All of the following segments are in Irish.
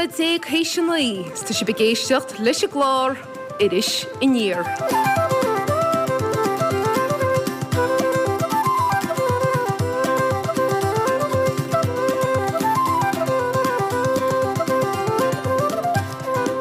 nóiméad théis a 9 is tá sibh ag éisteacht leis an gclár Iris Aniar.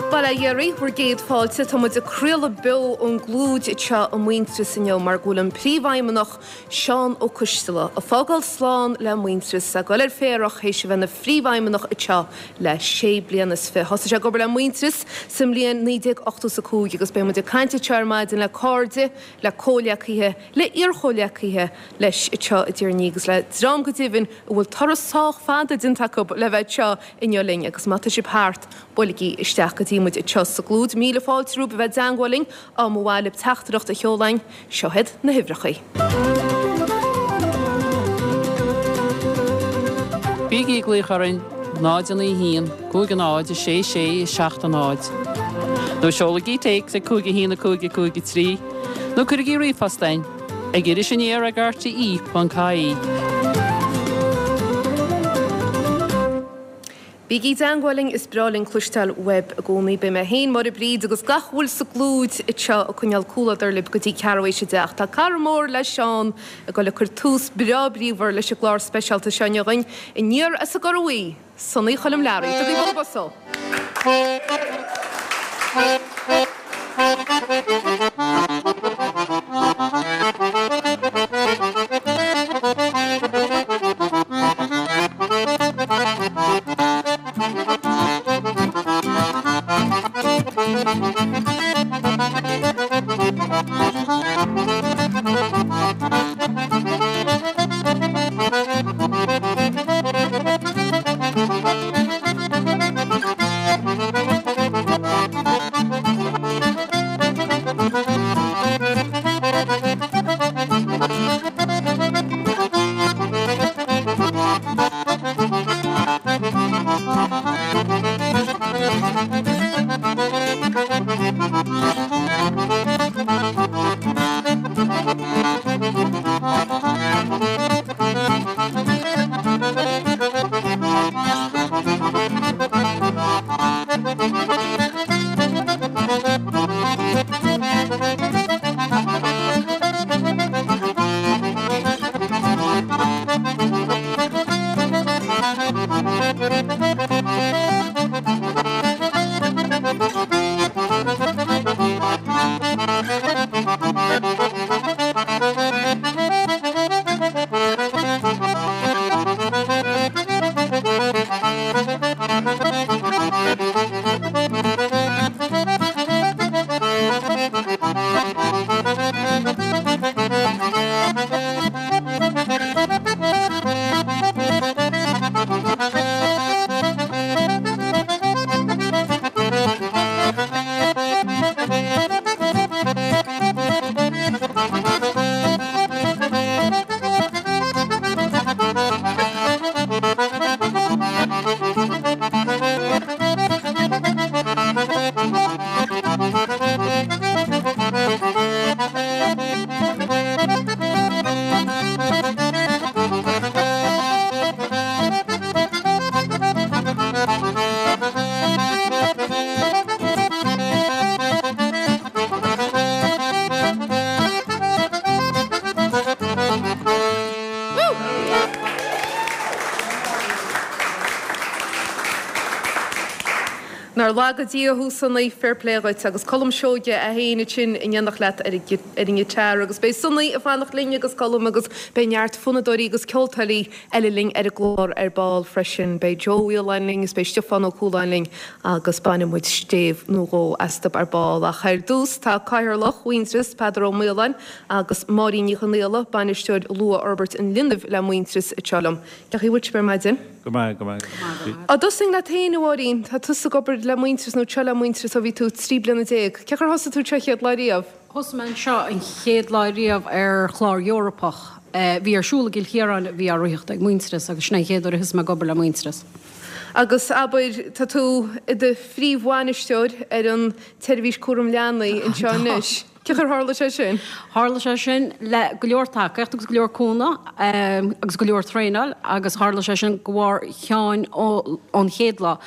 Bail ó Dhia oraibh, bhur gcéad fáilte. Tá muid ag craoladh beo ón gClúid anseo i Muintearas inniu mar go bhfuil an Príomhfheidhmeannach Seán Ó Coistealbha ag fágáil slán le Muintearas, ag dul ar féarach théis a bheith ina Phríomhfheidhmeannach anseo le sé bliana is fi. Thosaigh sé ag obair le Muintearas sa mbliain 1985 agus beidh muid ag caint anseo ar maidin le cairde, le comhghleacaithe, le iarchomhghleacaithe leis anseo i dTír an Fhia agus le dream go deimhin a bhfuil turas sách fada déanta acu le bheith anseo inniu linn agus má tá sibh thart, buailigí isteach go dtí muid anseo sa gClúid. Míle fáilte romhaibh a bheith i dteangmháil linn, dá mba mhaith libh teachtaireacht a sheoladh chugainn. Seo iad na huimhreacha. Bígí ag glaoch orainn 0 9 1 5 0 6 6 7 0 nó seolaigí téacs ag 5 1 5 5 3 nó cuirigí ríomhphost chugainn ag irisaniar ag rte.ie. Bígí i dteangmháil linn, is breá linn cloisteáil uaibh i gcónaí. Beidh mé féin, Máire Bríd agus gach a bhfuil sa gClúid anseo ag coinneáil comhluadar libh go dtí ceathrú théis a deich. Tá cara mór le Seán ag dul ag cur tús breá bríomhar leis an gclár speisialta seo inniu againn, aniar as an gCora Bhuí, Sonaí Choilm Learaí. Tugaigí bualadh bos dó! Nár laga Dia thú Sonaí, fair play dhuit agus Colm Seoige é féin ansin in éineacht leat ar an ngiotár agus beidh Sonaí ag fanacht linn agus Colm agus beidh neart fonnadóirí agus ceoltóirí eile linn ar an gclár ar ball freisin. Beidh Joe Ó Fhaoláin linn is beidh Stiofán Ó Cualáin linn agus bainfidh muid stéibh nó dhó astu ar ball. Ach ar dtús tá Cathaoirleach Mhuintearas, Peadar Ó Maoláin agus Máirín Ní Chonaola, Bainisteoir Luathfhorbairt an Linbh le Muintearas anseo liom. Cén chaoi a bhfuil sibh ar maidin? Go maith, go maith, go maith. Á dtosóinn leat féin, a Mháirín. Tá tusa ag obair le Muintearas nó anseo le Muintearas ó bhí tú 13 bliana. Cén chaoi ar thosaigh tú anseo chéad lá riamh? Thosaigh mé anseo an chéad lá riamh ar chlár Eorpach a bhí ar siúl i gCill Chiaráin a bhí á ritheacht ag Muintearas agus sin é an chéad uair a thosaigh mé ag obair le Muintearas. Agus abair, tá tú i do phríomhbhainisteoir ar an tseirbhís cúram leanaí anseo anois. Cén chaoi ar tharla sé sin? Tharla sé sin le go leor tacaíocht agus go leor cúnamh agus go leor traenáil agus tharla sé sin de bharr Sheáin ón chéad lá.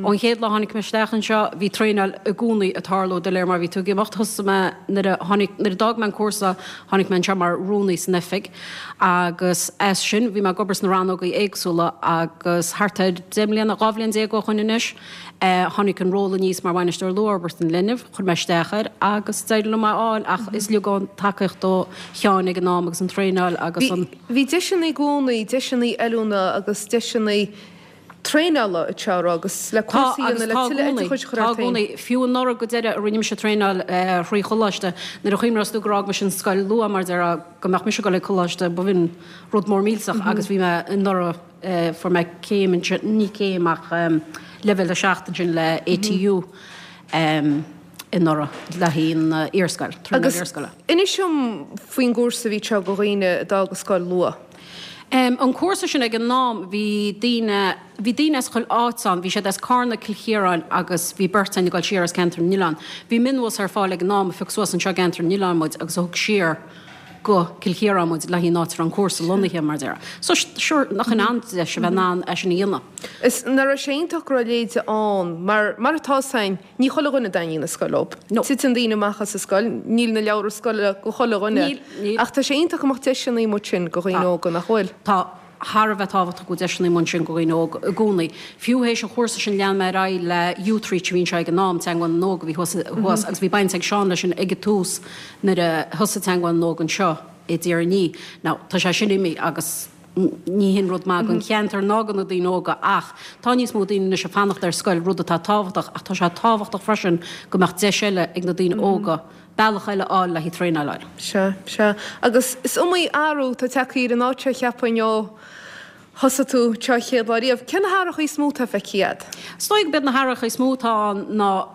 Ón chéad lá a tháinig mé isteach anseo bhí traenáil i gcónaí ag tarlú de réir mar a bhí tú ag imeacht. Thosaigh mé nuair a tháinig, nuair a d'fhág mé an cúrsa tháinig mé anseo mar rúnaí san oifig agus as sin bhí mé ag obair sna rannógaí éagsúla agus thart ar 10 mbliana, 12 bhliain ó shoin anois, Tháinig an ról aníos mar Bhainisteoir Luathfhorbartha an Linbh, chuir mé isteach air agus d'éirigh liom é a fháil ach is uilig ón tacaíocht ó Sheáin ag an am agus an traenáil agus an. Bhí deiseanna i gcónaí, deiseanna oiliúna agus deiseanna traenála anseo a raibh agus le cúrsaí a dhéanamh le tuilleadh oideachais a chur ort féin. Tá i gcónaí. Fiú anuraidh go deireadh a rinne mise traenáil thrí choláiste, nuair a chuimhneos tú gur fhág mise an scoil luath mar déarfá go mbeadh mise ag dul ag coláiste b'in rud mór millteach agus bhí mé anuraidh Fuair mé céim ansin, ní céim ach leibhéal 7 ansin le ATU anuraidh le haghaidh an iarscoil, traenáil iarscoile. Agus inis dom faoin gcúrsa a bhí anseo do dhaoine a d'fhág an scoil luath. An cúrsa sin ag an am bhí daoine, bhí daoine as chuile áit ann, bhí siad as Carna, Cill Chiaráin agus bhí beirt againn ag dul siar as Ceantar na nOileán. Bhí mionbhus ar fáil ag an am a phioc suas anseo i gCeantar na nOileán muid agus a thug siar go Cill Chiaráin muid le haghaidh an áit a raibh an cúrsa lonnaithe, mar a déarfá. So, sure, nach in an-deis a bheith in ann é sin a dhéanamh. Is nach raibh sé iontach go raibh a leithéid ann, mar, mar atá 'fhios a'inn, ní chuile dhuine a dtaitníonn an scoil leob. No. Titeann daoine amach as an scoil, níl na leabhra scoile go chuile dhuine. Níl, níl. Ach tá sé iontach go mbeadh deiseanna amuigh ansin go dhaoine Tá. óga, nach bhfuil? Tá. Thar a bheith tábhachtach go bhfuil deiseanna amuigh ansin go dhaoine óga i gcónaí. Fiú théis an chúrsa sin lean mé ar aghaidh le Youthreach a bhí anseo ag an am, Teagmháil na nÓg a bhí thuas thuas agus bhí baint ag Seán leis sin ag an tús nuair a thosaigh Teagmháil na nÓg anseo i dTír an Fhia. Now tá sé sin imithe agus ní hin rud maith don cheantar ná do na daoine óga ach tá níos mó daoine anois ag fanacht ar scoil, rud atá tábhachtach ach tá sé tábhachtach freisin go mbeadh deis eile ag na daoine óga bealach eile a fháil le haghaidh traenáil a fháil. Sea, sea. Agus is iomaí athrú atá tagtha ar an áit seo cheapfainn ó thosaigh tú anseo an chéad lá riamh. Cé na hathrachaí is mó atá feicthe agat? Is dóigh go b'iad na hathrachaí is mó atá ann ná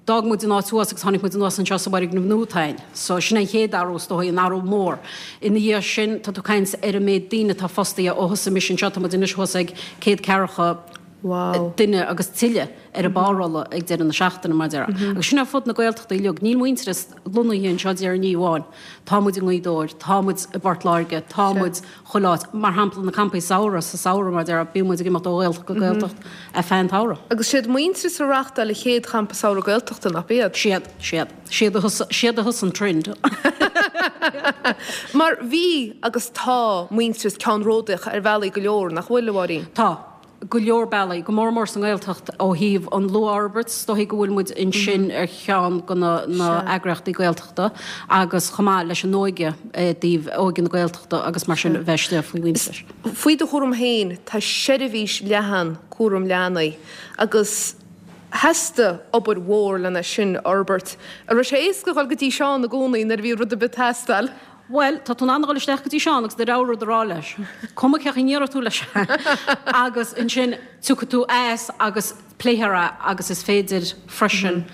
d'fhág muid an áit thuas agus tháinig muid anuas anseo sa bhfoirgneamh nua atá ann. So sin an chéad athrú is dóigh, an athrú mór. Ina dhiaidh sin tá tú ag caint ar an méid daoine atá fostaithe ó thosaigh mise anseo, tá muid anois thuas ag 140 duine agus tuilleadh ar an bpárolla ag deireadh na seachtaine, mar a déarfá. Agus sin ar fud na Gaeltachta uilig. Níl Muintearas lonnaithe anseo i dTír an Fhia amháin. Tá muid i nGaoth Dobhair, tá muid i bPort Láirge, tá muid chuile áit. Mar shampla, na campaí samhraidh, sa samhradh, mar a déarfá, bíonn muid ag imeacht ó Ghaeltacht go Gaeltacht ar feadh an tsamhraidh. Agus siad Muintearas a reáchtáil an chéad champa samhraidh Gaeltachta, nach b'iad? Siad, siad. Siad a thosaigh, siad a thosaigh an trend. Mar bhí agus tá Muintearas ceannródaíoch ar bhealaí go leor, nach bhfuil, a Mháirín? Tá. go leor bealaí, go mór mór sa nGaeltacht ó thaobh an luathfhorbairt, is dóigh go bhfuil muid ansin ar cheann de na heagraíochtaí Gaeltachta agus chomh maith leis an óige i dtaobh óige na Gaeltachta agus mar sin a bheith istigh faoi Mhuintearas. Faoi do chúram féin tá seirbhís leathan cúram leanaí agus theastaigh obair mhór lena sin a fhorbairt. An raibh sé éasca dhul go dtí Seán i gcónaí nuair a bhí rud ar bith ag teastáil? Bhuel, tá tú in ann a dhul isteach go dtí Seán agus do rogha rud a rá leis. Cuma cén chaoi a ndéarfaidh tú leis é. Agus ansin tiocfaidh tú as agus pléifear é agus is féidir freisin,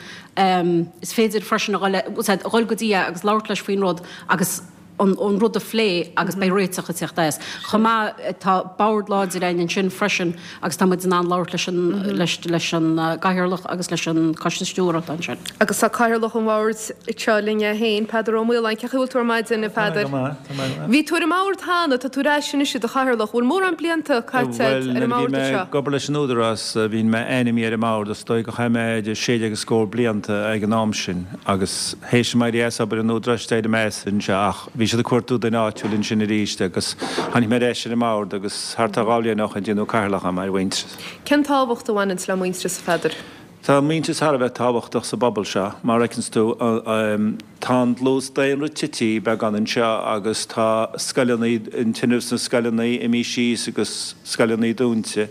is féidir freisin a dhul, a dhul go dtí é agus labhairt leis faoin rud agus an rud a phlé agus beidh réiteach ag teacht as. Chomh maith, tá bord láidir againn ansin freisin agus tá muid in ann labhairt leis an, leis, leis an gcathaoirleach agus leis an coiste stiúrtha atá ansin. Agus tá cathaoirleach an bhoird anseo linn é féin, Peadar Ó Maoláin. Cén chaoi a bhfuil tú ar maidin, a Pheadair? Tá mé go maith, tá mé go maith. Bhí tú ar an mbord cheana, tá tú ar ais anois i do chathaoirleach. Bhfuil mórán blianta caite agat ar an mbord anseo? Bhuel, nuair a bhí mé ag obair leis an Údarás, bhí mé ainmnithe ar an mbord, is dóigh gur chaith mé idir 16 agus scór blianta ag an am sin agus théis dom éirí as obair an Údaráis d'éirigh mé as anseo ach bhí siad ag cuartú duine áitiúil ansin arís agus tháinig mé ar ais ar an mbord agus thart ar dhá bhliain ó shin déanadh cathaoirleach dhom ar Mhuintearas. Cén tábhacht a bhaineanns le Muintearas, a Pheadair? Tá Muintearas thar a bheith tábhachtach sa bpobal seo. Mar a fheiceanns tú, tá an dlús daonra tití beagán anseo agus tá scoileanna, an tinreamh sna scoileanna imithe síos agus scoileanna dúnta.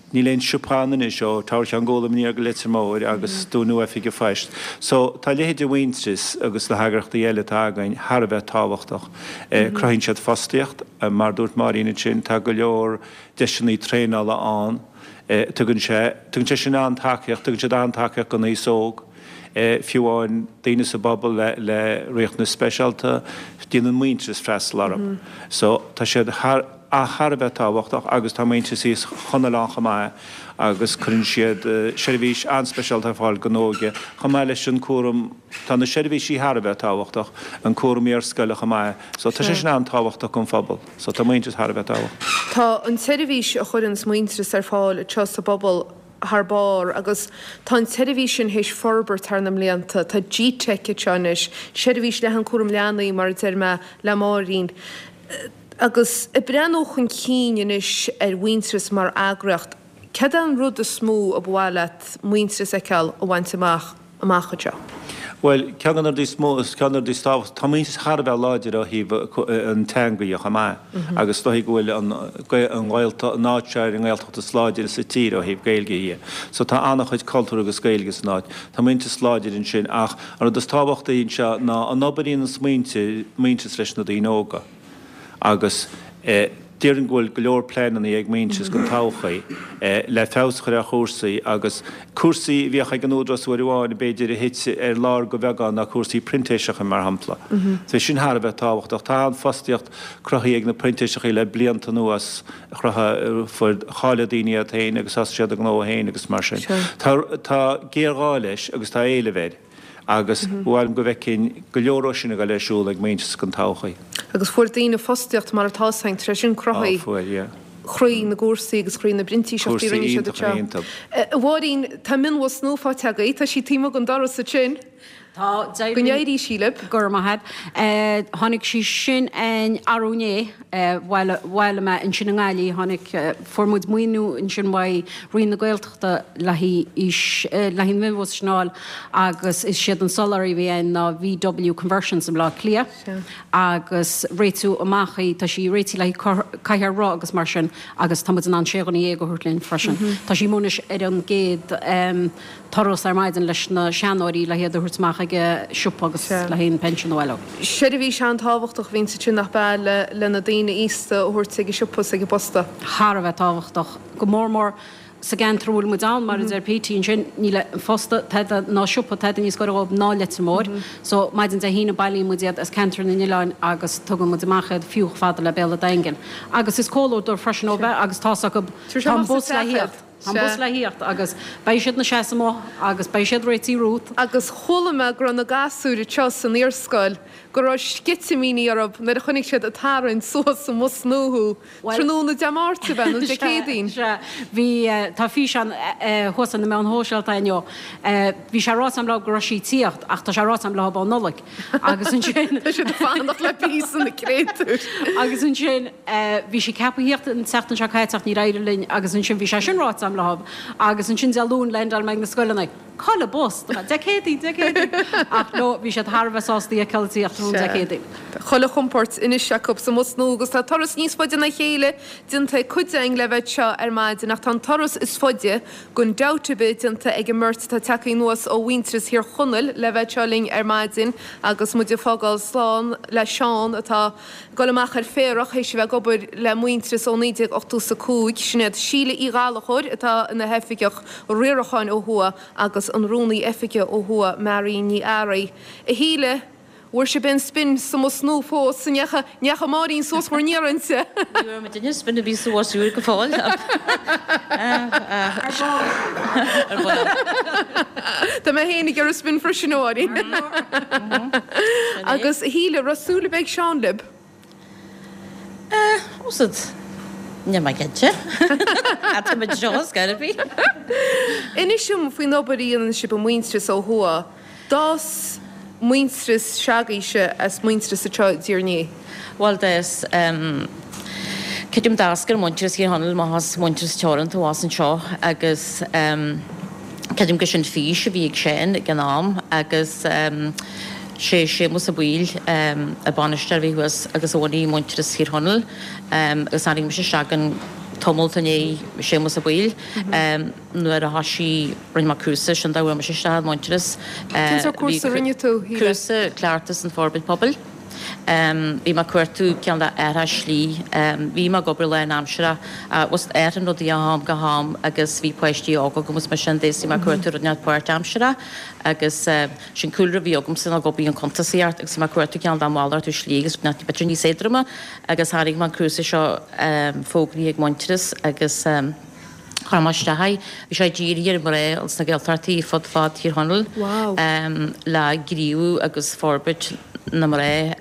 Níl aon siopa ann anois ó Teamhair Cheann Gólaim aniar go Leitir Móir agus dúnadh Oifig an Phoist. So tá a leithéid de Mhuintearas agus na heagraíochtaí eile atá againn thar a bheith tábhachtach. Cruthaíonn siad fostaíocht, mar a dúirt Máirín ansin, tá go leor deiseanna traenála ann. Tugann sé, tugann sé sin an-tacaíocht, tugann siad an-tacaíocht don aos óg, fiú amháin daoine sa bpobal le, le riachtanais speisialta, déanann Muintearas freastal orthu. So tá siad thar. thar a bheith tábhachtach agus tá Muintearas Thír Chonaill ann chomh maith agus cuireann siad seirbhís an-speisialta ar fáil don óige chomh maith leis an cúram, tá na seirbhísí thar a bheith tábhachtach, an cúram iarscoile chomh maith so tá sé sin an-tábhachtach don phobal so tá Muintearas thar a bheith tábhachtach. Tá an tseirbhís a chuireanns Muintearas ar fáil anseo sa bpobal thar barr agus tá an tseirbhís sin théis forbairt thar na mblianta. Tá GTeic anseo anois, seirbhís leathan cúram leanaí mar a deir mé le Máirín. Agus ag breathnú chun cinn anois ar Mhuintearas mar eagraíocht, céard é an rud is mó a ba mhaith leat Muintearas a fheiceáil a bhaint amach amach anseo? Bhuel, ceann de na rudaí is mó, ceann de na rudaí is tábhachtaí, tá Muintearas thar a bheith láidir ó thaobh an teanga dhe chomh maith agus is dóigh go bhfuil an Ghaeltacht, an áit seo ar an nGaeltacht is láidire sa tír ó thaobh Gaeilge dhe. So tá an-chuid cultúr agus Gaeilge san áit. Tá Muintearas láidir ansin ach an rud is tábhachtaí anseo ná an obair a dhéananns muintir, Muintearas leis na daoine óga. Agus déarfainn go bhfuil go leor pleananna ag Muintearas don todhchaí le feabhas a chur ar chúrsaí agus cúrsaí a bhíodh ag an Údarás uair amháin b'fhéidir a thit ar lár go bheagán ná cúrsaí printéiseacha mar shampla. Tá sin thar a bheith tábhachtach. Tá an-fhostaíocht cruthaithe ag na printéiseachaí le blianta anuas, chruthaigh, fuair, cháiligh daoine iad féin agus thosaigh siad a ngnó féin agus mar sin. Tá, tá géarghá leis agus tá éileamh air. agus ba mhaith liom go bhfeicfinn go leor ó sin ag dul ar siúl ag Muintearas don todhchaí. Agus fuair daoine fostaíocht mar atá ann, tar éis sin cruthaigh. Á, fuair, yeah. Chroí na gcúrsaí agus chroí na bprintíseachtaí a rinne siad anseo. A Mháirín, tá mionbhus nua faighte agaibh, tá sí taobh amuigh den doras ansin. Tá, Go n-éirí sí libh. Go raibh maith agat. Tháinig sí sin againn arú inné. Bhailigh mé ansin i nGaillimh, tháinig, fuair muid maoiniú ansin uaidh Roinn na Gaeltachta le haghaidh aois, le haghaidh an mhionbhus sin a fháil agus is siad an soláthraí a bhí ann ná VW Conversions i mBleá Cliath agus réitiú amach í, tá sí réitithe le haghaidh cathaoir roth agus mar sin agus tá muid in ann sé dhuine dhéag a thabhairt linn freisin. Tá sí amuigh anois ar an gcéad. turas ar maidin leis na seanóirí le hiad a thabhairt amach ag an siopa agus le haghaidh an pension a bhailiú. Seirbhís an-tábhachtach a bhíonn ansin nach ea le le na daoine aosta a thabhairt ag an siopa is ag an bposta. Thar a bheith tábhachtach, go mór mór sa gceantar a bhfuil muid ann, mar a deir Petey ansin, níl an posta tada ná siopa tada níos gaire dhóibh ná Leitir Móir. So, maidin Dé hAoine bailíonn muid iad as ceantar na n-oileáin agus tugann muid amach iad fiú chomh fada le Béal an Daingin. Agus is comhluadar freisin ó bheith agus tá's acu, tá an bus le thíocht. Tá an bus le thíocht agus beidh siad 'na seasamh amuigh agus beidh siad réitithe romhat. Agus chuala mé go raibh na gasúir anseo san iarscoil, go raibh sceitimíní orthu nuair a chonaic siad ag tarraingt suas sa mbus nua thú, tráthnóna Dé Máirt ab ea, nó Dé Céadaoin? Sea, bhí, tá físeán thuas ar na meáin shóisialta inniu. Bhí sé ráite agam leo go raibh sí ag tíocht ach tá sé ráite agam leo ó Nollaig. Agus ansin. Tá siad ag fanacht le píosa na créatúir. Agus ansin. Bhí sí ceaptha thíocht an tseachtain seo caite ach níor éirigh linn agus ansin bhí sé sin ráite agam leo agus ansin Dé Luain leaindeáil mé ag na scoileanna. Cá bhfuil an bus? Dé Céadaoin, Dé Céadaoin! Ach no, bhí siad thar a bheith sásta í a fheiceáil ag tíocht tráthnóna Dé Céadaoin. Tá chuile chompóirt anois acu sa mbus nua agus tá turas níos faide ná a chéile déanta ag cuid againn le bheith anseo ar maidin ach tá an turas is faide gan dabht ar bith déanta ag an mbeirt atá tagtha anuas ó Mhuintearas Thír Chonaill le bheith anseo linn ar maidin agus muid ag fágáil slán le Seán atá Dul amach ar féarach théis a bheith ag obair le Muintearas ó 1985. Sin iad Síle Uí Ghallchóir atá ina hOifigeach Riaracháin ó thuaidh agus an Rúnaí Oifige ó thuaidh, Marion Ní Fhearraigh. A Shíle, bhfuair sibh aon spin sa mbus nua fós? An ndeacha, ndeacha Máirín suas bhur n-iarrainnse? Ní raibh muidinne spin ar bith sa bhus úr go fóill. Ar ball. Ar ball. Tá mé féin ag iarraidh spin freisin, a Mháirín. Agus a Shíle, raibh súil ar bith ag Seán libh? Eh, úsáid. Níl mé cinnte. Tá muid seo ar scor ar bith. Inis dom faoin obair a dhéanann sibh i Muintearas ó thuaidh. D'fhás Muintearas se'agaibhse as Muintearas anseo i dTír an Fhia. Bhuel, d'fhás, creidim d'eascair Muintearas Thír Chonaill amach as Muintearas Teoranta abhus anseo agus creidim gur sin fís a bhí ag Seán ag an am agus sé Séamus Ó Baoill an bainisteoir a bhí thuas agus a bhunaigh Muintearas Thír Chonaill agus tháinig mise isteach ann tamalt i ndiaidh Séamus Ó Baoill nuair a thoisigh, rinne mé cúrsa, sin dá bhfuair mise isteach i Muintearas. Cén sórt cúrsa a rinne tú, Shíle? Cúrsa Cleachtas an Forbairt Pobail. Bhí mé ag cuartú cineál de athrach slí. Bhí mé ag obair lánaimseartha ach athraíonn rudaí ó am go ham agus bhí páistí óga agam agus mar sin de is bhí mé ag cuartú rud inteacht páirtaimseartha agus sin cúlra a bhí agamsa ná ag obair i gcuntasaíocht agus bhí mé ag cuartú cineál de malartú slí agus rud inteacht b'fhéidir níos éadroime agus tháinig mé an cúrsa seo fógraithe ag Muintearas agus Chuir mé isteach é. Bhí sé dírithe ar mhná sna Gaeltachtaí fud fad Thír Chonaill le gníomhú agus forbairt na mná,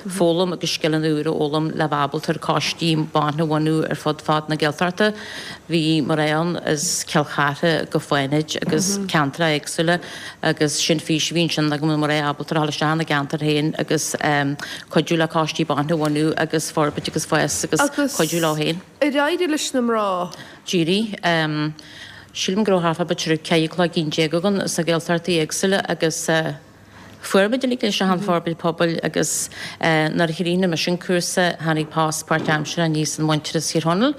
foghlaim agus scileanna úra a fhoghlaim le bheith ábalta ar coistí ban a bhunú ar fud fad na Gaeltachta. Bhí mná ann as Cill Chartha go Fánaid agus ceantracha éagsúla agus sin fís a bhí ansin go mbeadh na mná ábalta a dhul isteach ina gceantar féin agus cuidiú le coistí ban a bhunú agus forbairt agus fás agus cuidiú leo féin. Ar éirigh leis na mná? D'éirigh. Sílim go raibh thart fá b'fhéidir 14 cloigeann againn sna Gaeltachtaí éagsúla agus fuair muid uilig leis an forbairt pobail agus nuair a chríochnaigh mise an cúrsa tháinig post páirtaimseartha aníos in Muintearas Thír Chonaill.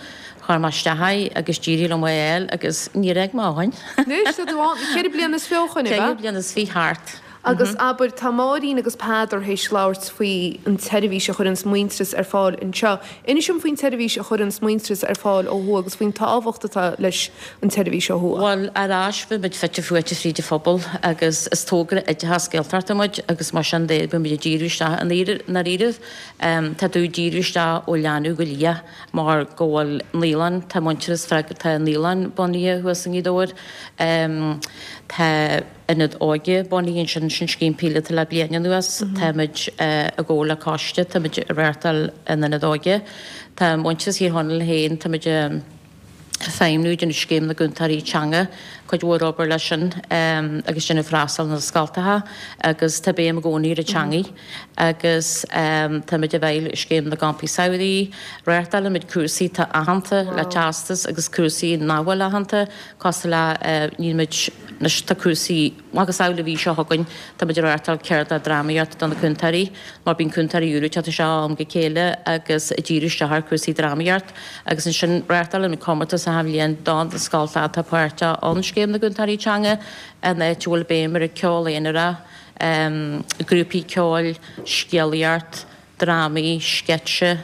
Chuir mé isteach é agus d'éirigh liom é a fháil agus níor fhág mé ó shin. Anois tá tú ann 24 bliana ó shin, ab ea? 4 bliana is fiche thart. Agus abair, tá Máirín agus Peadar théis labhairt faoi an tseirbhís a chuireanns Muintearas ar fáil anseo. Inis dom faoin tseirbhís a chuireanns Muintearas ar fáil ó thuaidh agus faoin tábhacht atá leis an tseirbhís ó thuaidh. Bhuel, ar ais, bhí muid fite fuaite fríd an phobal agus is togra oideachas Gaeltachta muid agus mar sin de bhí muid ag díriú isteach i ndáiríribh. Tá tú ag díriú isteach ó leanbh go liath mar go bhfuil naíolann, tá Muintearas freagrach, tá naíolann bunaithe thuas i nGaoth Dobhair, tá. Ionad Óige bunaithe ansin, sin scéim píolóta le bliain anuas. Táimid i gcomhar le coiste, táimid ag reáchtáil an Ionad Óige. Tá Muintearas Thír Chonaill féin, táimid ag feidhmniú, déanamh scéim na gcúntóirí teanga, cuid mhór obair leis sin agus déanamh freastal na scoltacha agus tá béim i gcónaí ar an teangaidh agus táimid i bhfeighil scéim na gcampaí samhraidh. Reáchtálaimid cúrsaí atá aitheanta le teastas agus cúrsaí nach bhfuil aitheanta. Cosúil le, níl muid, anois tá cúrsaí, macasamhail an mhí seo chugainn, tá muid ag reáchtáil ceardlann drámaíochta do na cúntóirí, mar bíonn cúntóirí úra ag teacht isteach ó am go chéile agus ag díriú isteach ar chúrsaí drámaíocht agus ansin reáchtálann muid comórtas achan bhliain do na scoltacha atá páirteach ann Scéim na gCúntóirí Teanga, an áit a bhfuil béim ar an ceol aonarach, grúpaí ceoil, scéalaíocht, drámaí, sceitse,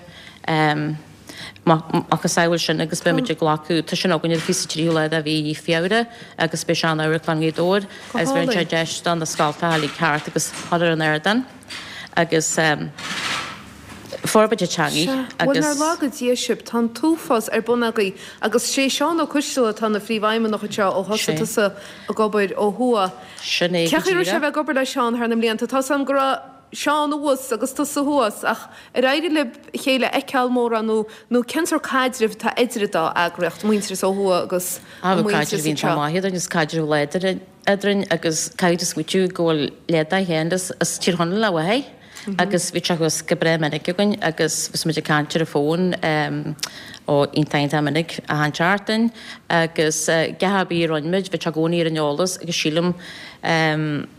macasamhail sin agus beidh muid ag glacadh, tá sin againn ar an 23ú lá de mhí Feabhra agus beidh sé in Amharclann Ghaoth Dobhair agus bheireann sé deis do na scoltacha uilig theacht agus dhul ar an ardán agus forbairt an teangaidh Sea, bhuel agus. nár laga Dia sibh, tá an t-uafás ar bun agaibh agus sé Seán Ó Coistealbha atá ina phríomhfheidhmeannach anseo ó thosaigh Sé. tusa ag obair ó thuaidh. Sin é Cén go chaoi a raibh sé díreach. a bheith ag obair le Seán thar na mblianta? Tá's agam go raibh. Seán abhus agus tusa thuas, ach ar éirigh libh a chéile a fheiceáil mórán nó nó cén sórt caidrimh atá idir an dá eagraíocht, Muintearas ó thuaidh agus Á, an bhí Muintearas caidreamh iontach anseo? maith eadrainn, is caidreamh láidir eadrainn agus caithfidh tú smaoitiú go bhfuil leath dá chéanna as Tír Chonaill a mháthair agus bhí sé thuas go breá minic againn agus bhí muid ag caint ar an bhfón ó iontach iontach minic achan tseachtain agus gach ar bith a rinne muid bhí sé i gcónaí ar an eolas agus sílim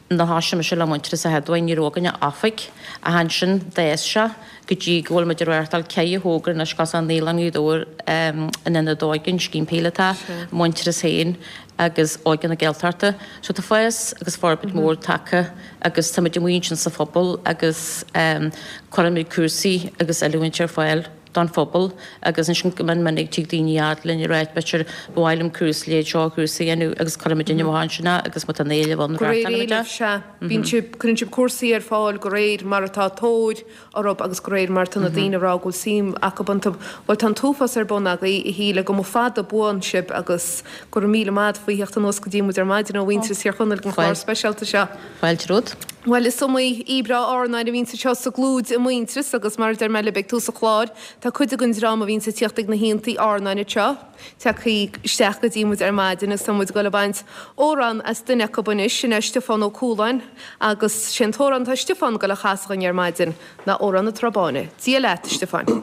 Nuair a thoisigh mise le Muintearas an chéad uair ní raibh againn ach oifig ach ansin d'fhás sé go dtí go bhfuil muid ag reáchtáil ceithre thogra anois cosúil le Naíolann Ghaoth Dobhair, an Ionad Óige, an Scéim Píolótach, Muintearas féin agus Óige na Gaeltachta. So tá fás agus forbairt mhór tagtha agus tá muid amuigh ansin sa phobal agus cuireann muid cúrsaí agus oiliúint ar fáil. don phobal agus ansin go mion minic tig daoine fhad linn ag ráit b'fhéidir ba mhaith liom cúrsa leithéid seo cúrsa a dhéanamh agus cuireann muid amach ansin é agus má tá an éileamh ann De réir reáchtálann muid é. éilimh, sea. Bíonn sibh, cuireann sibh cúrsaí ar fáil de réir mar atá tóir orthu agus de réir mar atá na daoine ag rá go bhfuil suim acu iontu. Bhuel tá an t-uafás ar bun agaibh, a Shíle, go mba fada buan sibh agus go raibh míle maith agat faoi theacht anuas go dtí muid ar maidin ó Mhuintearas Thír Chonaill don chlár speisialta seo. Fáilte romhat. Bhuel, is iomaí aoi breá amhráin a bhíonns anseo sa gClúid i Muintearas agus mar a deir mé libh ag tús an chláir, tá cuid den dream a bhíonns ag tíocht ag na haontaí amhráin anseo tagtha isteach go dtí muid ar maidin agus tá muid ag dul ag baint amhrán as duine acu anois, sin é Stiofán Ó Cualáin agus sé an t-amhrán atá Stiofán ag dul a chasadh dhúinn ar maidin ná Amhrán na Trá Báine. Dia leat, a Stiofáin.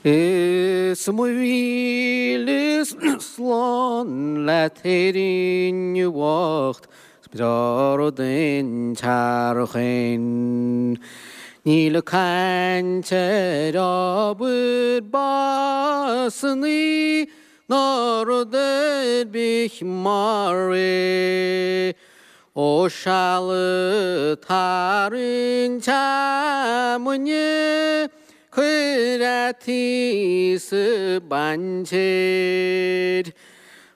Is mo mhíle slán leat Éirinn bhocht 'S breá rud an tsearchain. Níl caint ar obair básannaí ná rud ar bith mar é. Ó seal ag tarraingt fheamainne, cuir fhataí sa bpaintéir.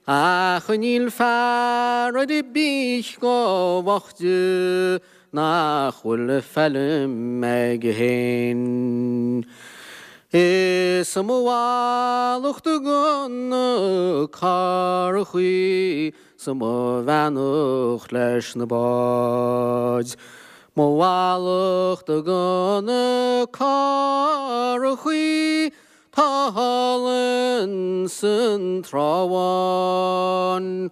Ach níl fear ar bith chomh boichte nach bhfuil feilm aige féin. Is mo mhallacht do na curachaí 's mo bheannacht leis na báid. Mo mhallacht do na curachaí 'tá thall ins an Trá Bháin.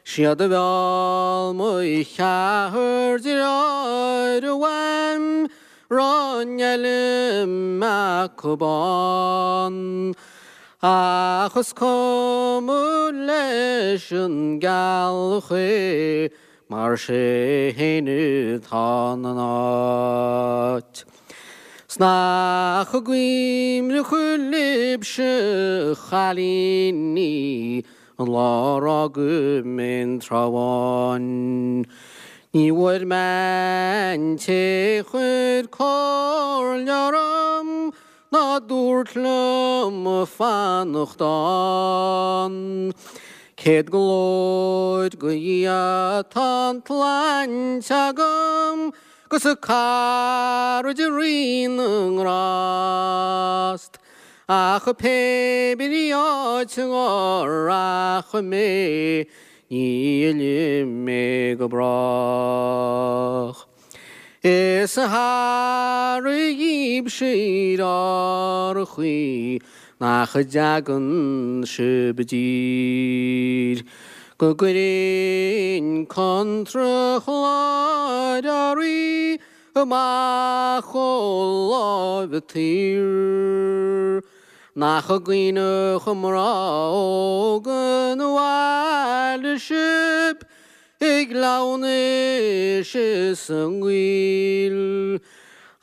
Siad a mheall mo cheathrar deartháir uaim raibh an fheilm acub ann. Ach is cuma leis an gceallach é mar sé fhéin atá ina áit. 'S nach cuimhneach libhse a chailíní an lá ar fhág mé an Trá Bháin. Ní bhfuair mé an té chuir comhairle orm ná dúirt liom fanacht ann. Céad glóir go Dhia tá an tsláinte agam 'gus caraid Rí na nGrást. Ach pé brí áit a rachaidh mé ní fhillfidh mé go brách. Is aire dhíbhse ar árthaí nach dtagann sibh i dtír, go gcuirfinn contrachlár earraí amach ó láimh an tsaoir. Nach cuimhneach mná óga an bhaile sibh I gcleamhnais is i ngaol.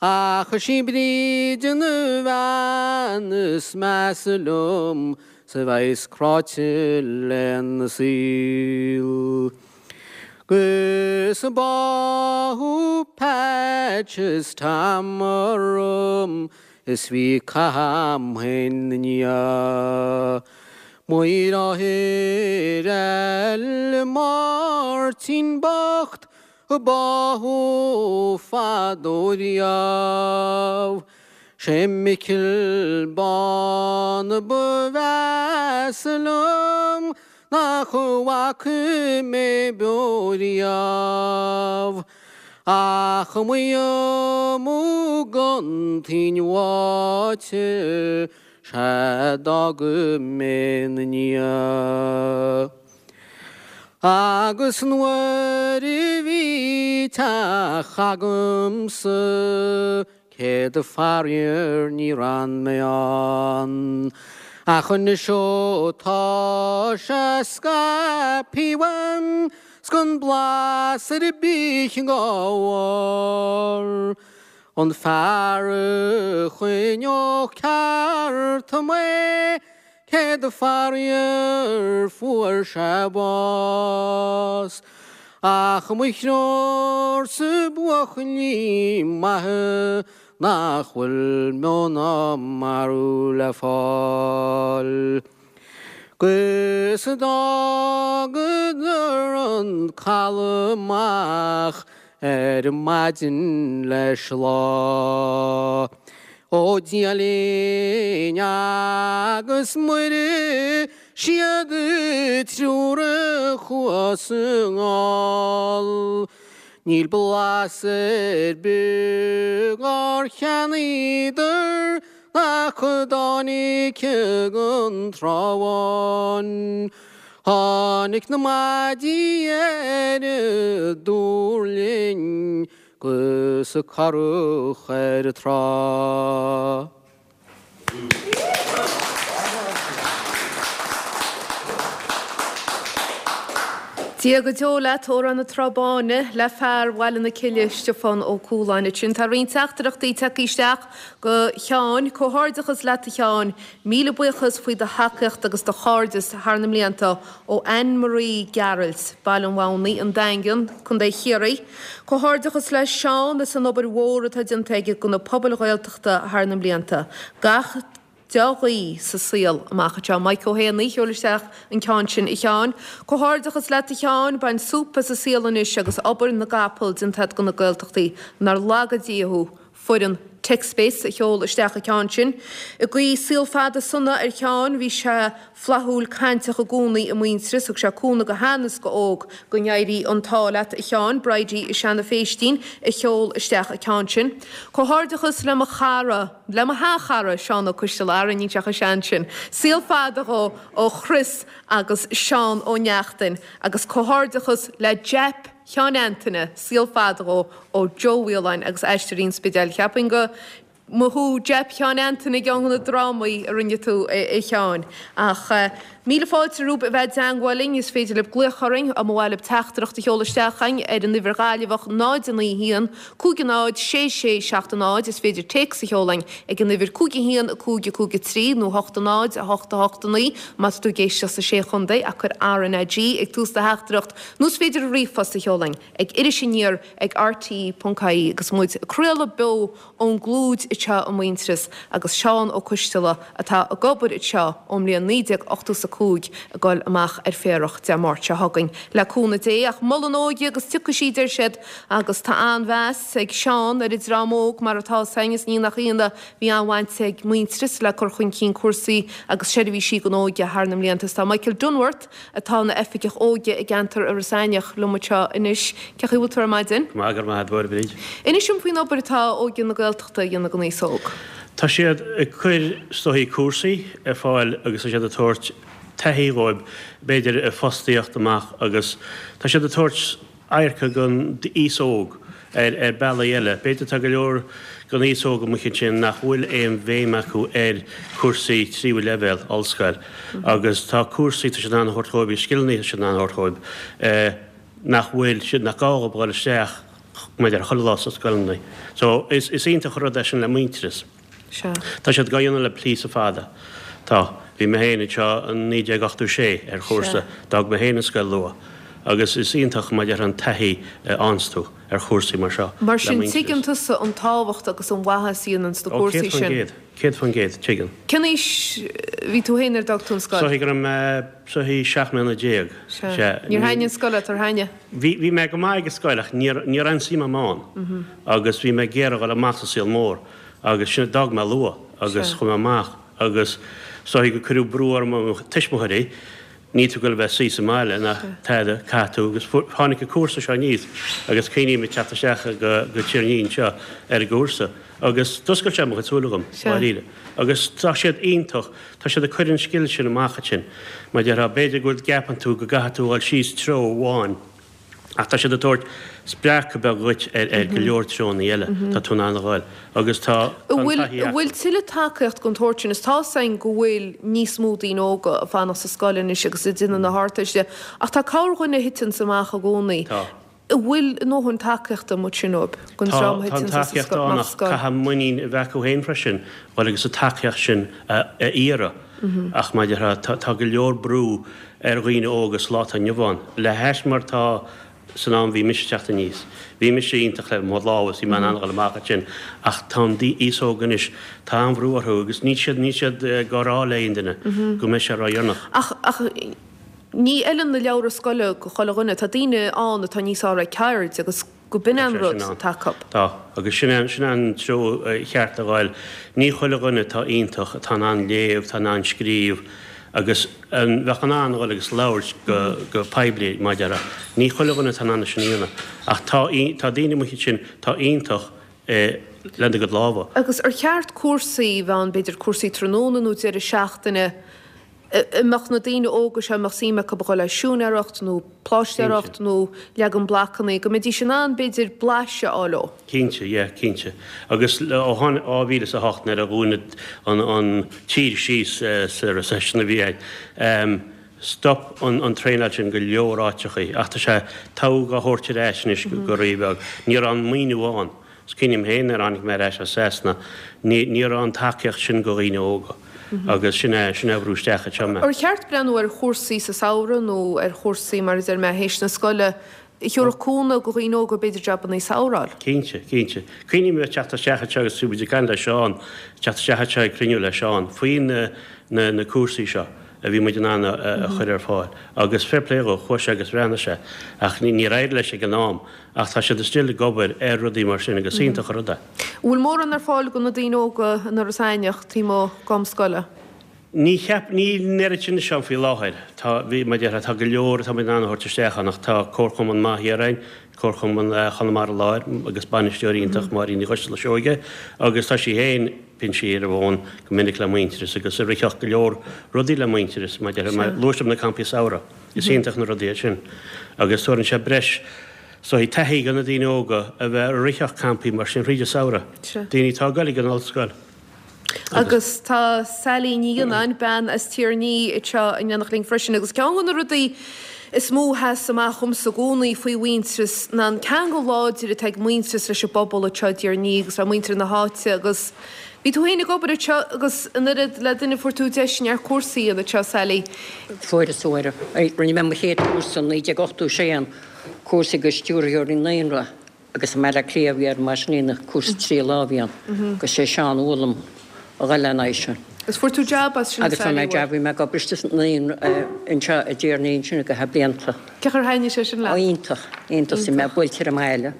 Ach is í Bríd an bhean is measa liom 's a bheas cráite lena saol. 'Gus báthadh Patch is Tom orm is bhí cath a'm féin 'na ndiaidh. Mo dheartháir eile Máirtín bocht a báthadh fadó riamh. Sé Micil Bán ba mheasa liom nach bhfaca mé beo riamh. Ach mo iomadh gon toinn bháite 'sea d'fhág mé 'na ndiaidh. Agus nuair a bhí teach agamsa céad faraor níor fhan mé ann. Ach anois ó tá sé scaipthe uaim 's gan blas ar bith dhá bharr. An fear a choinneodh ceart mé, céad faraor fuair sé bás. Ach mo threoirsa buachaillí maithe nach bhfuil meo ná marbh le fáil. 'Gus d'fhágadar an caladh amach ar maidin leis lá. Ó Dia linn agus Muire siad triúr a chuas anall. Níl blas ar bith dhár cheannaíodar Nach dtáinig gon Trá Bháin. Tháinig na maidí ar an duirlinn 'gus an curach ar an trá. Dia go deo leat, Órán na Trá Báine, le fear Bhaile na Cille, Stiofán Ó Cualáin. Ansin tá roinnt teachtaireachtaí tagtha isteach go Sheáin. Comhghairdeachas leat a Sheáin. Míle buíochas faoi do thacaíocht agus do chairdeas thar na mblianta ó Anne Marie Gearailt, Baile an Mhamhnaigh, An Daingean, Co. Chiarraí. Comhghairdeachas le Seán as an obair mhór atá déanta aige do na pobail Ghaeltachta thar na mblianta. Gach dea-ghuí sa saol amach anseo. Mike Ó hÉanaí, sheol isteach an ceann sin a Sheáin. Comhghairdeachas leat a Sheáin, bain súp as an saol anois agus obair na gcapall déanta agat do na Gaeltachtaí. Nár laga Dia thú. Foireann TechSpace a sheol isteach an ceann sin. Ag guí saol fada sona ar Sheáin, bhí sé flaithiúil cainteach i gcónaí i Muintearas, thug sé cúnamh go shean is go óg. Go n-éirí an t-ádh leat a Sheáin, Bridie i Seanadh Phéistín a sheol isteach an ceann sin. Comhghairdeachas le mo chara, le mo sheanchara, Seán Ó Coistealbha, ara níl sé chomh sean sin. Saol fada dhó ó Chris agus Seán Ó Neachtain agus comhghairdeachas le Japp Sheáin Antaine, saol fada dhó ó Joe Mhaoláin agus Aisteoirí an Spidéil. Cheapfainn go mba thú Japp Sheáin Antaine i gceann de na drámaí a rinne tú, a Sheáin. Ach míle fáilte romhaibh a bheith i dteangmháil linn. Is féidir libh glaoch orainn, nó mba mhaith libh teachtaireacht a sheoladh isteach chugainn ar an uimhir Ghaillimheach 0 9 1 5 0 6 6 7 0. Is féidir téacs a sheoladh chugainn ag an uimhir 5 1 5 5 3 nó 8 0 8 8 9 má tá tú ag éisteacht sa Sé Chontae ach cuir RnaG ag tús do theachtaireacht nó is féidir ríomhphost a sheoladh chugainn ag irisaniar ag rte.ie agus muid ag craoladh beo ón gClúid anseo i Muintearas agus Seán Ó Coistealbha atá ag obair anseo ón mbliain 1985 ag dul amach ar féarach Dé Máirt seo chugainn le cúnamh Dé ach mol an óige agus tiocfaidh sí deir siad agus tá an-mheas ag Seán ar an dream óg mar atá 's againn is ní nach ionadh bhí an-bhaint ag Muintearas le cur chun cinn cúrsaí agus seirbhísí don óige thar na mblianta is tá Michael Dunworth atá ina Oifigeach Óige i gceantar Iorras Aithneach liom anseo anois. Cén chaoi a bhfuil tú ar maidin? Go maith, go raibh maith agat, a Bhríd. Inis dom faoin obair atá Óige na Gaeltachta a dhéanamh don aos óg. Tá siad ag cur is dóichí cúrsaí ar fáil agus tá siad ag tabhairt taithí dhóibh, b'fhéidir i bhfostaíocht amach agus tá siad ag tabhairt adharca don aos óg ar bealaí eile. B'fhéidir tá go leor den aos óg amuigh ansin nach bhfuil aon bhéim acu ar cúrsaí tríú leibhéal, ollscoil, agus tá cúrsaí tá siad in ann a thabhairt dhóibh, scileanna tá siad in ann a thabhairt dhóibh nach bhfuil siad, nach gá dhóibh dhul isteach maidir chuile lá sna scoileanna. So is iontach an rud é sin le Muintearas. Sea. Tá siad dhá dhéanamh le píosa fada. Tá. Bhí mé féin anseo in 1986 ar chúrsa. D'fhág mé féin an scoil luath. Agus is iontach maidir an taithí a fhaigheanns tú ar chúrsaí mar seo Mar le sin, Muintearas. tuigeann tusa an tábhacht agus an mhaitheas a dhéananns na Ó, cúrsaí sin. 100%. 100%, tuigeann. Cén aois a bhí tú féin nuair a d'fhág tú an scoil? Is dóichí go raibh mé, is dóichí 17 mbliana. Sea. Sea. Níor thaitnigh an scoil leat, ar thaitnigh? Bhí, bhí mé go maith ag an scoil ach níor, ní raibh aon suim agam ann. Agus bhí mé ag iarraidh dhul amach sa saol mór agus sin, d'fhág mé luath agus chuaigh mé amach agus is dóichí gur cuireadh brú orm ó mo tuismitheoirí, níl tú ag dul a bheith suí sa mbaile ná tada, caithfidh tú agus tháinig an cúrsa seo aníos agus cuimhním ag teacht isteach go go Tír an Fhia anseo ar an gcúrsa agus d'oscail sé mo chuid súile dhom, dáiríre. Agus tá siad iontach, tá siad ag cur an scil sin amach ansin. Mar a déarfá, b'fhéidir go bhfuil, gceapann tú go gcaithfidh tú a dhul síos treo amháin, Ach tá siad ag tabhairt spreacadh beag dhuit ar go leor treonna eile tá tú in ann a dhul agus tá an taithí acu. An bhfuil tuilleadh tacaíocht den tsórt sin? Is tá 'fhios againn go bhfuil níos mó daoine óga ag fanacht sa scoil anois agus ag déanamh na hArdteiste ach tá corrdhuine a thiteanns amach i gcónaí. Tá. An bhfuil a ndóthain tacaíochta amuigh ansin dóibh, don Tá, dream a tá an thiteanns as tacaíocht ann amach ach scoil? caithfidh muinín a bheith acu féin freisin dhul agus an tacaíocht sin a iarraidh. Ach mar a déarfá, tá go leor brú ar dhaoine óga sa lá atá inniu ann, le hais mar tá san am bhí mise ag teacht aníos. Bhí mise iontach le mo lámha is bhí mé in ann a dhul amach ansin ach tá an aos óg anois, tá an-bhrú orthu agus níl siad, níl siad ag rá le aon duine go mbeidh sé ródheireanach. Ach, ach ní fheileann na leabhra scoile go chuile dhuine. Tá daoine ann atá níos fearr ag ceird agus go b'in an rud atá acu. Tá, agus sin é, sin é an treo cheart a ghoil. Ní chuile dhuine atá iontach, atá in ann léamh, atá in ann scríobh agus an bheadh in ann a dhul agus labhairt go, go poiblí, mar a déarfá. Ní chuile dhuine atá in ann é sin a dhéanamh. Ach tá, tá daoine amuigh ansin atá iontach lena gcuid lámha. Agus ar cheart cúrsaí a bheith ann, b'fhéidir cúrsaí tráthnóna nó deireadh seachtaine, a mbeadh na daoine óga seo, a mbeadh suim acu a dhul le siúinéireacht nó pláistéireacht nó leagan blocanna, go mbeidís in ann, b'fhéidir, blaiseadh a fháil ó. Cinnte, yeah, cinnte. Agus ó tháinig 2008 nuair a dhún an tír síos sa recession a bhí ann,. Stop an traenáil sin go leor áiteachaí ach tá sé togha á thabhairt ar ais anois go rí-bheag. Ní raibh an maoiniú ann. Is cuimhin liom féin nuair a tháinig mé ar ais as Sasana, ní ní raibh an tacaíocht sin go dhaoine óga agus sin é sin é a bhrú isteach anseo mé. Ar cheart breathnú ar chúrsaí sa samhradh nó ar chúrsaí mar a deir mé théis na scoile a thabharfadh cúnamh go dhaoine óga b'fhéidir jabannaí samhraidh a fháil? Cinnte, cinnte. Cuimhním ag teacht isteach anseo agus bhí muid ag caint le Seán, teacht isteach anseo ag cruinniú le Seán faoi na na na cúrsaí seo a bhí muid in ann a chur ar fáil agus fair play dhó, chuaigh sé agus bhreathnaigh sé ach níor éirigh leis ag an am ach tá siad still ag obair ar rudaí mar sin agus is iontach an rud é. An bhfuil mórán ar fáil do na daoine óga in Iorras Aithneach taobh amuigh d'am scoile? Ní cheap, níl an oiread sin anseo faoi láthair. Tá, bhí, mar a déarfá, tá go leor atá muid in ann a thabhairt isteach ann ach tá Comharchumann maith thiar againn, Comharchumann Chonamara Láir agus bainisteoir iontach, Máirín Ní Choisteala Seoige agus tá sí féin, bíonn sí ar an bhfón go minic le Muintearas agus ag ritheacht go leor rudaí le Muintearas, mar a déarfá, mar luaigh sibh na campaí samhraidh, is iontach na rudaí iad sin agus tabharann sé breis, so taithí do na daoine óga a bheith ag ritheacht campaí mar sin thríd an samhradh, daoine atá ag goil ag an ollscoil. Agus tá Sally Ní Fhionnáin, bean as Tír an Fhí, anseo in éineacht linn freisin. Agus ceann de na rudaí is mó a sheas amach dhomsa i gcónaí faoi Mhuintearas ná an ceangal láidir atá ag Muintearas leis an bpobal anseo i dTír an Fhí agus le muintir na háite. Agus bhí tú féin ag obair anseo agus in oiread le duine fuair tú deis neart cúrsaí a dhéanamh anseo, Sally. Fuaireas, fuair. Rinne mé mo chéad chúrsa in 1986, cúrsa do stiúrthóirí naíonra. Agus i mBaile Átha Cliath a bhí ar mar sin cúrsa 3 lá a bhí ann agus sé Seán a mhol dom a dhul ina aghaidh sin. Agus fuair tú jab as sin Agus fuair mé jab, bhí mé ag obair istigh sa naíonra anseo i dTír an Fhí ansin go feadh blianta. Cén chaoi ar thaitnigh sé sin leat? Ó iontach, iontach, bhí mé buailte ar an mbaile.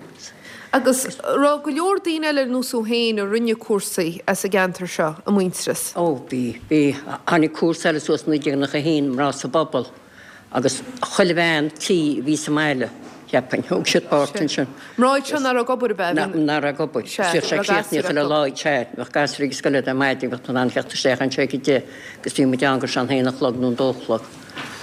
Agus raibh go leor daoine eile ar nós thú féin a rinne cúrsaí as an gceantar seo i Muintearas? Ó bhí, bhí. Tháinig cúrsa eile suas i 1991, Mná sa bPobal. Agus chuile bhean tí a bhí sa mbaile, cheapfainn, thóg siad páirt ansin. Mná iad seo nach raibh ag obair, ab ea? Nach raibh ag obair. Sea, Bhíodh sé críochnaithe chuile lá, sea. Bheadh gasúir ag an scoil ar maidin, bheadh tú in ann theacht isteach anseo ag a deich agus bhí muid ann go sé an haon a chlog nó an dó a chlog.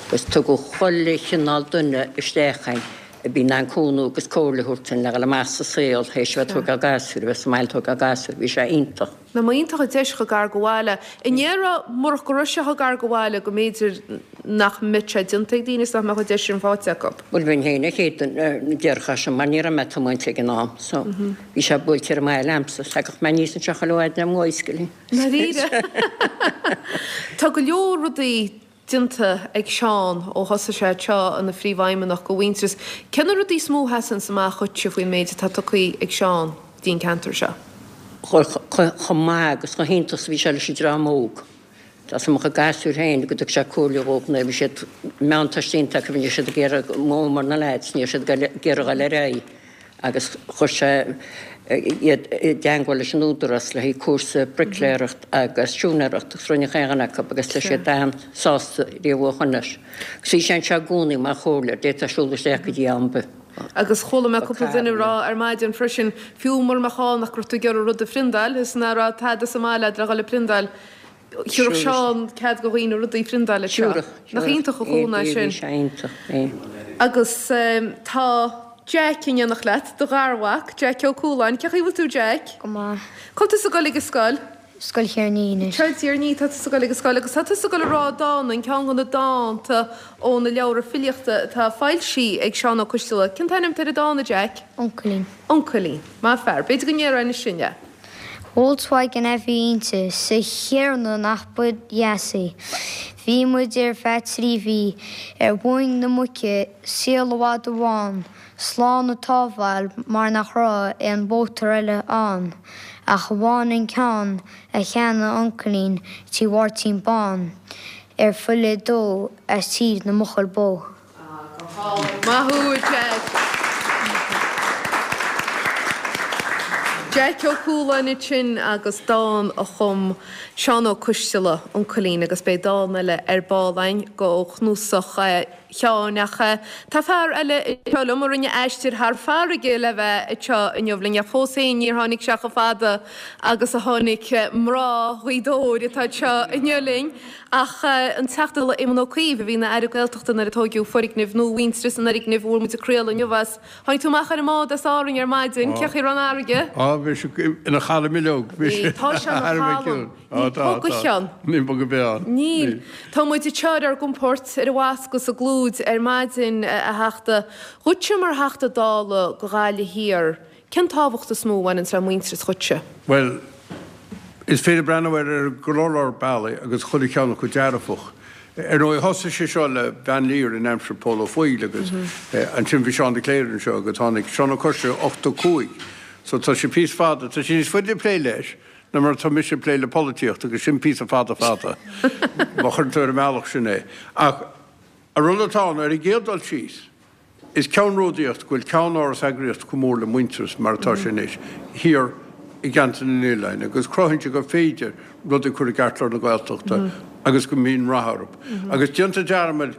Agus tugadh chuile chineál duine isteach againn a bhí in ann cúnamh agus comhairle a thabhairt dúinn le dhul amach sa saol théis a bheith ag tógáil gasúir, a bheith sa mbaile ag tógáil gasúir. Bhí sé iontach. Nach iontach an deis chomh gar do bhaile. An ndéarfá murach go raibh sé chomh gar do bhaile go mb'fhéidir nach mbeadh sé déanta ag daoine is nach mbeadh an deis sin faighte acu? Bhuel bheinn féin an chéad duine a déarfadh sin mar ní raibh mé ag tiomáint ag an am so bhí sé buailte ar an mbaile a'msa. Thagadh mé aníos anseo chuile mhaidin ar mo bhicycle. Ndáiríre? Tá go leor rudaí déanta ag Seán ó thosaigh sé anseo ina phríomhfheidhmeannach go Mhuintearas. Cé na rudaí is mó a sheasanns amach dhuitse faoin méid atá tugtha ag Seán dtí'n ceantar seo? Chomh maith agus chomh hiontach is a bhí sé leis an dream óg. Tá 's a'm a chuid gasúir féin go dtug sé comhairle dhóibh nuair a bhí siad meánteist déanta acu ní raibh siad ag iarraidh mó mar na lads ní raibh siad ag iarraidh dul ar aghaidh. agus chuir sé iad i dteangmháil leis an Údarás le haghaidh cúrsa bricléireacht agus siúinéireacht agus rinne chaon dhuine acu agus tá siad an-sásta riamh ó shoin leis. Agus bhí sé anseo i gcónaí mar chomhairleoir, d'fhéadfá siúl isteach go dtí am ar bith. Agus chuala mé cúpla duine ag rá ar maidin freisin, fiú mura mbeadh ann ach go raibh tú ag iarraidh rud a phriondáil, is nach raibh tada sa mbaile agat le dhul ag priondáil, Thabharfadh Seán cead go dhaoine rudaí a phriondáil anseo. Nach iontach an chúnamh é sin. Bhí sé iontach, bhí. Agus tá Jeaic in éineacht leat, do gharmhac, Jeaic Ó Cualáin. Cén chaoi a bhfuil tú, Jeaic? Go maith. Cá bhfuil tusa ag dul ag an scoil? Scoil Thír an Fhí anois. Seo i dTír an Fhí atá tusa ag dul ag an scoil agus tá tusa ag dul a rá dán, an ceann de na dánta ó na leabhra filíochta atá foilsithe ag Seán Ó Coistealbha. Cén t-ainm atá ar an dán, a Jeaic? Uncailín. Uncailín. Maith fear. B'fhéidir go ndéarfá anois sin é. Volkswagen a bhí inti, 's a Thiarna nach ba dheas í. Bhí muid ar feadh 3 mhí ar mhuin na muice, saol i bhfad amháin, slán an tsábháil mar nach raibh aon mhótar eile ann ach amháin an ceann a cheannaigh uncailín tí Mháirtín Bán ar filleadh dó as tír na mbuachaill bó. Maith thú, a Jeaic. Jeaic Ó Cualáin ansin agus dán a chum Seán Ó Coistealbha, Uncailín, agus beidh dán eile ar ball againn ó chnuasach. Sheáin. Ach tá fear eile anseo liom a rinne aistear thar farraige le bheith anseo inniu linn, ach fós féin níor tháinig sé chomh fada agus a tháinig mná Ghaoth Dobhair atá anseo inniu linn. Ach an Teachta Dála Éamon Ó Cuív, a bhí ina Aire Gaeltachta nuair a tóigeadh foirgneamh nua Mhuintearas, an fhoirgneamh a bhfuair muid ag craoladh inniu as. Tháinig tú amach ar an mbád as Árainn ar maidin, cén chaoi a raibh an fharraige? Á, bhí sé ina chalm uileag. Bhí, tá sé ina chalm. Níl puth go cheann. Níl puth ar bith ann. Níl. Tá muid anseo ar ár gcompord ar an bhfoscadh sa gClúid ar maidin, a Theachta. Dhuitse mar Theachta Dála do Ghaillimh Thiar, cén tábhacht is mó a bhaineanns le Muintearas dhuitse? Bhuel, is féidir breathnú air ar go leor leor bealaí agus chuile cheann acu dearfach. Ar ndóigh, thosaigh sé seo le Van Lier in aimsir Pól Ó Foighil agus ansin bhí Seán de Cléire anseo agus tháinig Seán Ó Coistealbha 85 so tá sé píosa fada, tá sé níos faide ag plé leis ná mar atá mise ag plé le polaitíocht agus sin píosa fada fada má chuireann tú ar an mbealach sin é. Ach an rud atá ann, ar an gcéad dul síos, Is ceannródaíocht go bhfuil ceannáras eagraíocht chomh mór le Muintearas, mar atá sé anois, thiar i gceantar na n-oileán agus cruthaíonn sé gur féidir rudaí a chur i gceartlár na Gaeltachta agus go mbíonn rath orthu. Agus déantar dearmad,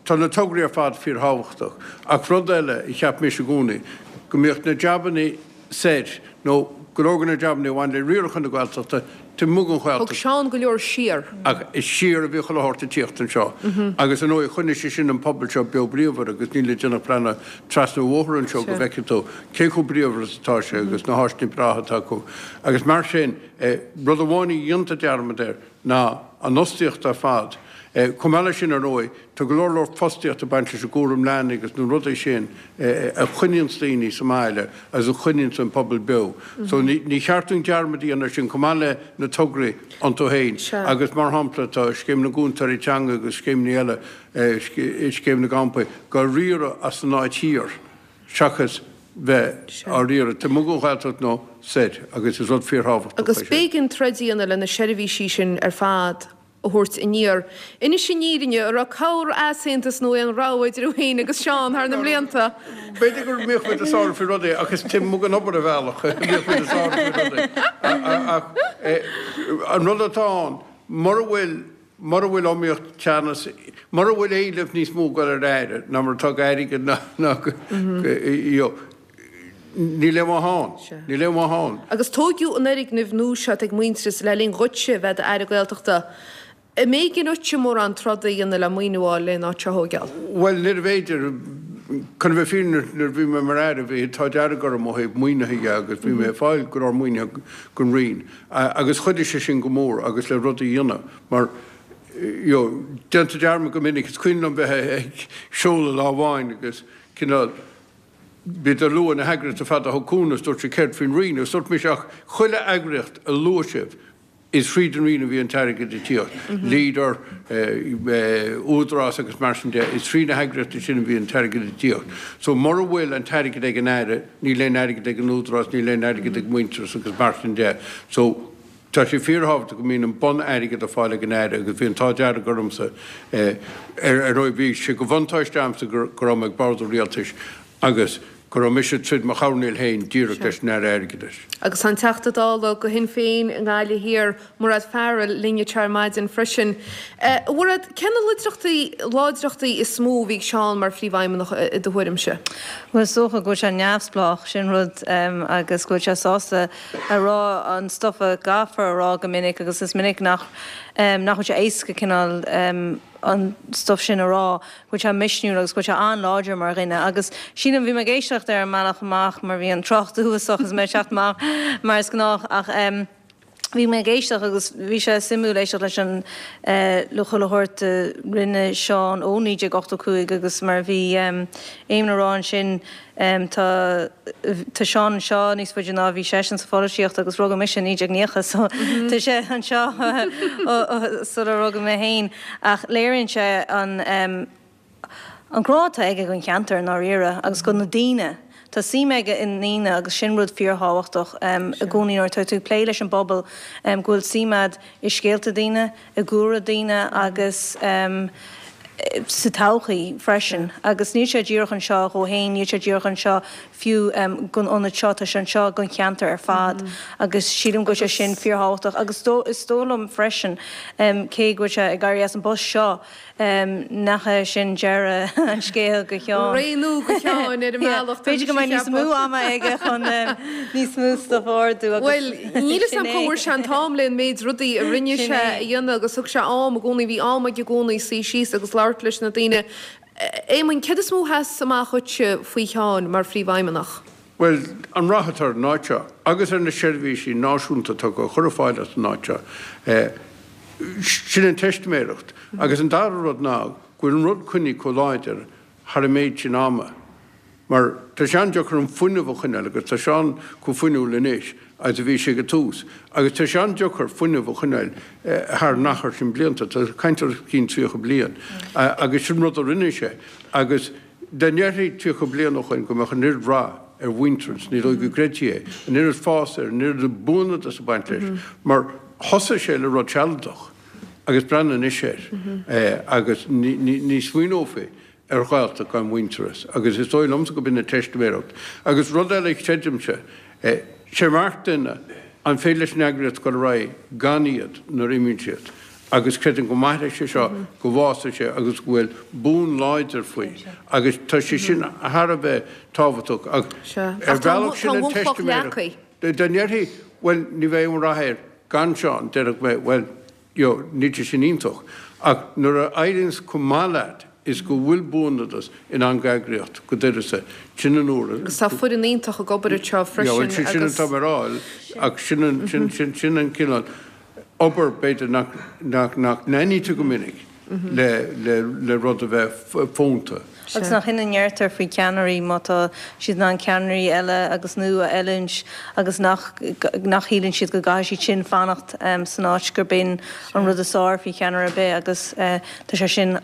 tá na tograí ar fad fíorthábhachtach, ach rud eile a cheap mise i gcónaí, go mbíodh na jabannaí soir, nó go leor de na jabannaí a bhain le riarachán na Gaeltachta, taobh amuigh den Ghaeltacht. Thug Seán go leor siar. Ach is siar a bhí chuile shórt ag tíocht anseo. Agus ar ndóigh choinnigh sé sin an pobal seo beo bríomhar agus níl le déanamh ach breathnú trasna an bhóthair anseo go bhfeicfidh tú cé chomh bríomhar is atá sé agus na háiseanna breátha atá acu. Agus mar sin, rud amháin a dhéantar dearmad air ná an fhostaíocht ar fad. Chomh maith leis sin ar ndóigh, tá go leor leor fostaíocht ag baint leis an gcúram leanaí agus na rudaí sin a choinníonns daoine sa mbaile agus a choinníonns an pobal beo. So ní cheart dúinn dearmad a dhéanamh air sin chomh maith le na tograí iontu féin agus mar shampla tá Scéim na gCúntóirí Teanga agus scéimeanna eile, Scéim na gCampaí, á riaradh as an áit thiar seachas bheith á riaradh taobh amuigh den Ghaeltacht nó soir agus is rud fíorthábhachtach é Agus sin. b'éigean troid a dhéanamh le na seirbhísí sin ar fad a thabhairt aniar. Inis an fhírinne, an raibh corr-easaontas nó aon rogha idir thú féin agus Seán thar na mblianta? B'fhéidir go mbíodh muid ag sárú faoi rudaí ach is taobh amuigh den obair ar bhealach a bhíodh muid ag sárú faoi rudaí. Ach an rud atá ann, mura bhfuil, mura bhfuil iomaíocht, teannas, mura bhfuil éileamh níos mó ag dul ar aire ná mar atá d'airgead ná go, you know, Níl aon mhaith ann. Níl aon mhaith ann. Agus tóigeadh an fhoirgneamh nua seo ag Muintearas le linn dhuitse bheith i d'Aire Gaeltachta. An mb'éigean dhuitse mórán troda a dhéanamh le maoiniú a fháil lena áit seo a thóigeáil? Bhuel, níorbh fhéidir. Chun a bheith fírinneach, nuair a bhí mé mar Aire, bhí an t-ádh dearg orm ó thaobh maoinithe dhe agus bhí mé ag fáil go leor maoinithe gon Roinn agus chuidigh sé sin go mór agus le rudaí a dhéanamh mar you know, déantar dearmad go minic, is cuimhin liom bheith ag seoladh lá amháin agus cineál, Bhíodar ag lua na heagraíochtaí ar fad a thug cúnamh is dúirt siad céard faoin Roinn agus dúirt mise ach chuile eagraíocht a luaigh sibh is thríd an Roinn a bhí an t-airgead ag tíocht, Leader, Údarás agus mar sin de, is trí na heagraíochtaí sin a bhí an t-airgead ag tíocht. So mura bhfuil an t-airgead ag an Aire níl aon airgead ag an Údarás, níl aon airgead ag Muintearas agus mar sin de. So tá sé fíorthábhachtach go mbíonn an bun-airgead ar fáil ag an Aire agus bhí an t-ádh dearg ormsa, ar ndóigh bhí sé de bhuntáiste a'msa go raibh mé ag bord an Rialtais agus go raibh mise tríd mo choirnéal féin díreach leis an Aire Airgeadais. Agus tá an Teachta Dála do Shinn Féin i nGaillimh Thiar, Mairéad Farrell, linn anseo ar maidin freisin. A Mhairéad, cé na láidreachtaí, láidreachtaí is mó a bhí ag Seán mar Phríomhfheidhmeannach i do thuairimse? Bhuel is dócha go bhfuil sé neamhspleách, sin rud, agus go bhfuil sé sásta a rá an stuif a gcaithfear a rá go minic agus is minic nach nach bhfuil sé éasca cineál an stuif sin a rá, go bhfuil sé misniúil agus go bhfuil sé an-láidir mar dhuine agus sílim, bhí mé ag éisteacht ar an mbealach amach mar bhí an trácht uafásach is mé ag teacht amach mar is gnách ach bhí mé ag éisteacht agus bhí sé suimiúil éisteacht leis an le chuile shórt a rinne Seán ó 1985 agus mar a bhí Éamonn a rá ansin Tá tá Seán anseo níos faide ná a bhí seisean sa pholaitíocht agus rugadh mise i 1990 so tá sé anseo sular rugadh mé féin ach léiríonn sé an an grá atá aige don cheantar i ndáiríre agus do na daoine. Tá suim aige i ndaoine agus sin rud fíorthábhachtach i gcónaí nuair atá tú ag plé leis an bpobal go bhfuil suim a'd i scéalta daoine, i gcúlra daoine agus. sa todhchaí freisin. Agus níl sé díreach anseo dhó fhéin, níl sé díreach anseo fiú don ionad seo, tá sé anseo don cheantar ar fad agus sílim go bhfuil sé sin fíorthábhachtach. Agus is dóigh liom freisin, cé go bhfuil sé ag éirí as an bpost seo, Nach é sin deireadh an scéil do Sheán. Ré nua do Sheán ar an mbealach. B'fhéidir go mbeidh níos mó ama aige chun níos mó stuif a ordú agus Bhuel, níl 'fhios a'm cá bhfuair sé an t-am le an méid rudaí a rinne sé a dhéanamh agus thug sé am i gcónaí, bhí am aige i gcónaí suí síos agus labhairt leis na daoine. Éamoinn, céard is mó a sheas amach dhuitse faoi Sheán mar phríomhfheidhmeannach? Bhuel, an rath atá ar an áit seo agus ar na seirbhísí náisiúnta atá á chur ar fáil as an áit seo, sin an teistiméireacht. Agus an dara rud ná go bhfuil an rud coinnithe chomh láidir thar an méid sin ama. Mar tá sé an-deacair an fuinneamh a choinneáil agus tá Seán chomh fuinniúil anois agus a bhí sé ag an tús. Agus tá sé an-deacair fuinneamh a choinneáil thar an achar sin blianta, tá caint ar os cionn 30 bliain. Agus sin rud a rinne sé. Agus. Dá ndéarfaí 30 bliain ó shoin go mbeadh an oiread rath ar Mhuintearas, ní dóigh go gcreidfí é, an oiread fás air, an oiread buanadas ag baint leis, mar thosaigh sé le rud sealadach agus breathnaigh anois air agus ní smaoineofaí ar Ghaeltacht gan Mhuintearas agus is dóigh liomsa go b'in an teistiméireacht. Agus rud eile a chreidimse, sé marc duine an féidir leis an eagraíocht dul ar aghaidh gan iad nuair a imíonn siad. Agus creidim go mairfidh sé seo, go bhfásfaidh sé agus go bhfuil bun láidir faoi agus tá sé sin thar a bheith tábhachtach ach ar bhealach sin an teistiméireacht. Dá ndéarfaí bhuel ní bheidh aon rath air gan Seán, déarfadh mé bhuel you know níl sé sin iontach ach nuair a éiríonns chomh maith leat is go bhfuil buanadas in ann d'eagraíocht go d'uireasa, sin an uair a. Agus tá foireann iontach ag obair anseo freisin agus. Sin atá mé a rá ach sin an cineál. obair, b'fhéidir, nach n-aithnítear go minic le rud a bheith fónta. Agus nach in a ndeirtear faoi cheannairí, má tá siad in ann ceannairí eile agus nua a oiliúint agus nach nach shíleann siad go gcaithfidh siad sin fanacht san áit gurb in an rud is fearr faoi cheannaire ar bith agus tá sé sin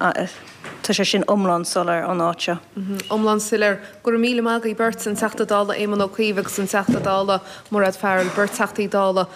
Tá sé sin iomlán soiléir ón áit seo. Iomlán soiléir. Go raibh míle maith agaibh beirt, an Teachta Dála Éamon Ó Cuív agus an Teachta Dála Mairéad Farrell, beirt Teachtaí Dála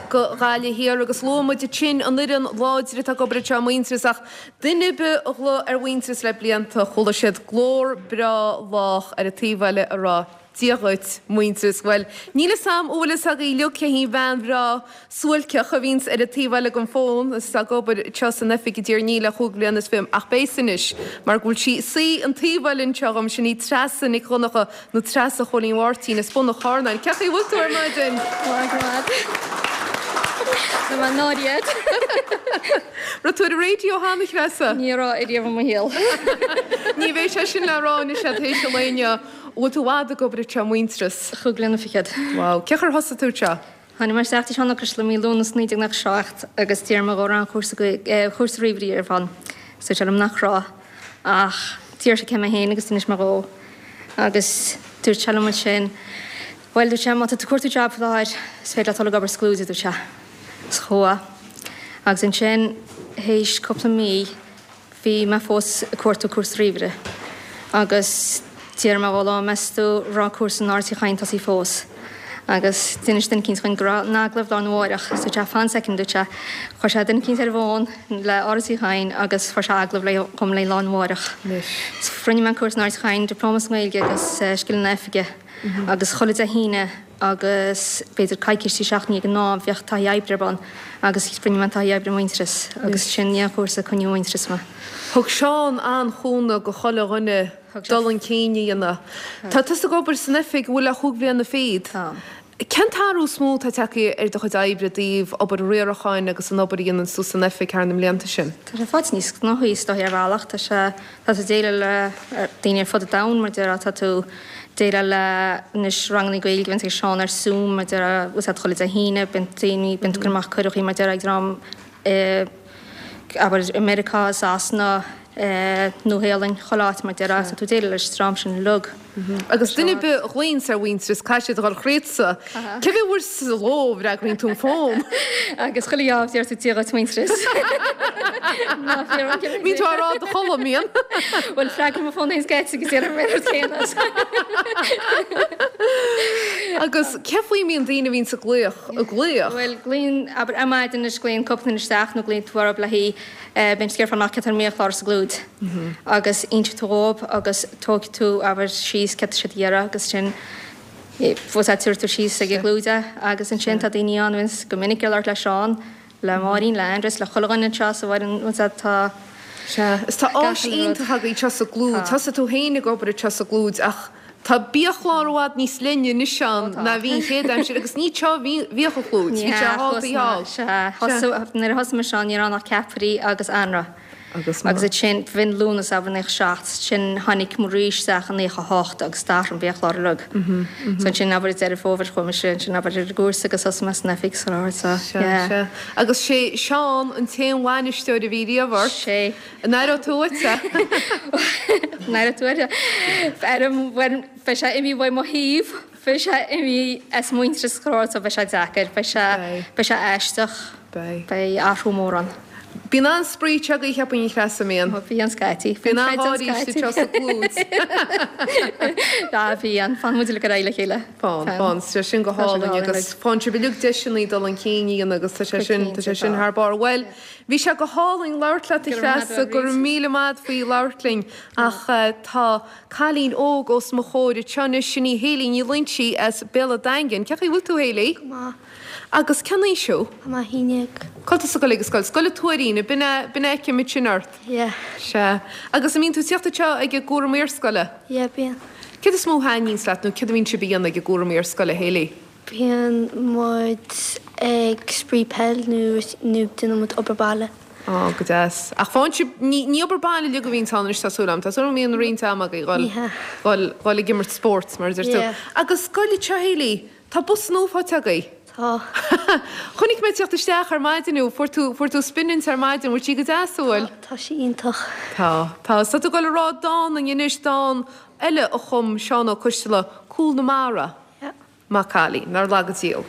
go Gaillimh Thiar. Agus luaigh muid ansin an fhoireann láidir atá ag obair anseo i Muintearas ach duine ar bith a ghlaoigh ar Mhuintearas le blianta, chuala siad glór breá lách ar an taobh eile ag rá Dia dhuit, Muintearas. Bhuel, níl 'fhios a'm an bhfuil 'fhios agaibh uilig cé hí an bhean bhreá suailceach a bhíonns ar an taobh eile den bhfón is atá ag obair anseo san oifig i dTír an Fhia le chúig bhliana is fiche, ach beidh 'fhios anois mar go bhfuil sí ag suí an taobh eile anseo dhom, sin í Treasa Nic Dhonncha nó Treasa Chóilín Mháirtín as Bun an Charnáin. Cén chaoi a bhfuil tú ar maidin? Maith go maith. Tá mé náirithe. Raibh tú ar an raidió cheana, a Threasa? Ní raibh ariamh i mo shaol. Ní bheidh sé sin le rá anois tar éis an lae inniu. Bhfuil tú i bhfad ag obair anseo i Muintearas? Chúig bliana fichead. Wow. Cén chaoi ar thosaigh tú anseo? Tháinig mé isteach tí Seán Ó Coisteala mí Lúnasa 1997 agus d'iarr mé dhó an raibh aon chúrsa Gaeilge, chúrsa ríomhairí ar bun. Is dúirt sé liom nach raibh. Ach d'iarr sé cé mé féin agus d'inis mé dhó. Agus dúirt sé liom ansin, bhuel, dúirt sé, má tá tú ag cuartú job faoi láthair, is féidir leat dul ag obair sa Clúid, a dúirt sé. Is chuaigh. Agus ansin, théis cúpla mí, Bhí mé fós ag cuartú cúrsa ríomhaire agus d'iarr mé dhó lá meas tú raibh cúrsa in Áras Uí Chadhain tosaithe fós agus d'inis duine eicínt dhuinn go raibh an agallamh lá arna mháireach so dúirt sé fan soicind dúirt sé chuir sé duine eicínt ar an bhfón le Áras Uí Chadhain agus fuair sé agallamh le dhom le lá arna mháireach. So rinne mé an cúrsa in Áras Uí Chadhain, Diplóma sa nGaeilge agus Scileanna Oifige agus chuile Dé hAoine agus b'fhéidir coicís trí seachtainí ag an am bheadh taithí oibre ar bun agus rinne mé an taithí oibre i Muintearas agus sin é an chúrsa a coinníodh i Muintearas mé. Thug Seán an-chúnamh go chuile dhuine dul chun cinn a dhéanamh. Tá tusa ag obair san oifig an bhfuil le chúig bhliana fichead. Tá. Cén t-athrú is mó atá tagtha ar do chuid oibre i dtaobh obair riaracháin agus an obair a dhéanann tú san oifig thar na mblianta sin? Tá sé faighte níos gnóthaí is dóichí ar bhealach. Tá sé Tá tú ag déileáil le daoine ar fud an domhain, mar a déarfá, tá tú ag déileáil le anois ranganna Gaeilge a bhíonns ag Seán ar Zoom, mar a déarfá, bhfuil a fhios agat chuile Dé hAoine, bíonn daoine, bíonn tú ag cur amach cuireadh, mar a déarfá, ag dream i, abair, i Meiriceá, i Sasana, Nua-Shéalainn, chuile áit, mar a déarfá, so tá tú ag déileáil leis an dream sin uilig. Agus duine ar bith a ghlaonns ar Mhuintearas, caithfidh siad a dhul thríotsa. Cé mhéad uair sa ló a bhfreagraíonn tú an fón? Agus chuile gheábh deir tú Dia dhuit Muintearas. Bíonn tú á rá i do chodladh, mbíonn? Bhuel, freagraím mo fón féin scaití agus déanaim an rud céanna. Agus cé faoi a mbíonn daoine a bhíonns ag glaoch, ag glaoch? Bhuel, glaonn, abair, ar maidin anois glaonn cúpla duine isteach nó glaonn tú orthu le haghaidh, bíonn siad ag iarraidh fáil amach céard atá ar an mbiachlár sa gClúid agus inseoidh tú dhóibh agus tógfaidh tú, abair, síos céard atá siad a iarraidh agus sin, bhfuil a fhios agat, tabharfaidh tú síos ag an gClúid é agus ansin tá daoine ann a bhíonns go minic ag labhairt le Seán, le Máirín, le Aindrias, le chuile dhuine anseo sa bhfoireann, bhfuil a fhios agat, tá Sea, is tá gach áis uile rud. iontach agaibh anseo sa gClúid. Tá. Thosaigh tú féin ag obair anseo sa gClúid ach tá biachlár i bhfad níos leithne anois ann Ó tá. ná bhí an chéad aimsir agus ní anseo a bhí, bhíodh an Chlúid, Ní bhí sé hea, thall thuas taobh ná, thall. sea, Sea. thosaigh, nuair a thosaigh mise ann ní raibh ann ach ceapairí agus anraith. Agus Agus ansin, b'in Lúnasa abair 97, ansin tháinig Marie isteach i 98 agus d'athraigh an biachlár uilig. So ansin abair i Deireadh Fómhair chuaigh mise ansin abair ar an gcúrsa agus thosaigh mé san oifig sa láthair so Sea, yeah. sea. Agus sé Seán an t-aon bhainisteoir a bhí riamh ort. Sé. An aireoidh tú uait é? An aireoidh tú uait é? Bhuel, beidh sé imithe uaidh mo thaobh, beidh sé imithe as Muintearas so beidh sé deacair, beidh sé, beidh sé aisteach. Beidh. Beidh athrú mór ann. Bíonn an-spraoi anseo agaibh cheapfainn a Threasa, an mbíonn? Ó bíonn scaití. Bíonn an-gháirí istigh anseo sa gClúid. Á bíonn. Faigheann muid uilig ar aghaidh le chéile. Faigheann, faigheann. Tá sé sin go hálainn agus faigheann sibh uilig deiseanna dul chun cinn a dhéanamh agus tá sé sin, tá sé sin thar barr. Bhuel, bhí sé go hálainn labhairt leat a Threasa, go raibh míle maith a't faoi labhairt linn ach tá cailín óg os mo chomhair anseo anois, sin í Hayley Ní Loingsigh as Béal an Daingin. Cén chaoi a bhfuil tú Hayley? Go maith. Agus cén aois thú? Tá mé 11. Cá bhfuil tusa ag dul ag an scoil? Scoil an Tuairín, b'in é, b'in é a fheicim ansin ort. Yeah. Sea. Agus an mbíonn tú ag tíocht anseo ag an gcúram iarscoile? Yeah, bíonn. Céard is mó a thaitníonns leat nó céard a bhíonn sibh a dhéanamh ag an gcúram iarscoile, Hayley? Bíonn muid ag spraoi peil nó nó déanann muid obair baile. Á, go deas. Ach faigheann sibh, ní, ní obair baile uilig a bhíonns ann anois tá súil agam. Tá súil agam go mbíonn roinnt ama agaibh dhul, Ní hea. dhul, dhul ag imirt spóirt mar a deir tú. Yeah. Agus scoil anseo, Hayley, Tá bus nua faighte agaibh. Tá. Chonaic mé ag tíocht isteach ar maidin thú. Fuair tú, fuair tú spinint ar maidin. Bhfuil sí go deas, an bhfuil? Tá, tá sí iontach. Tá, tá. Is tá tú ag dul a rá dán dúinn anois, dán eile a chum Seán Ó Coisteala, Cúl na Mara. Yeah. Maith cailín, nár laga Dia thú.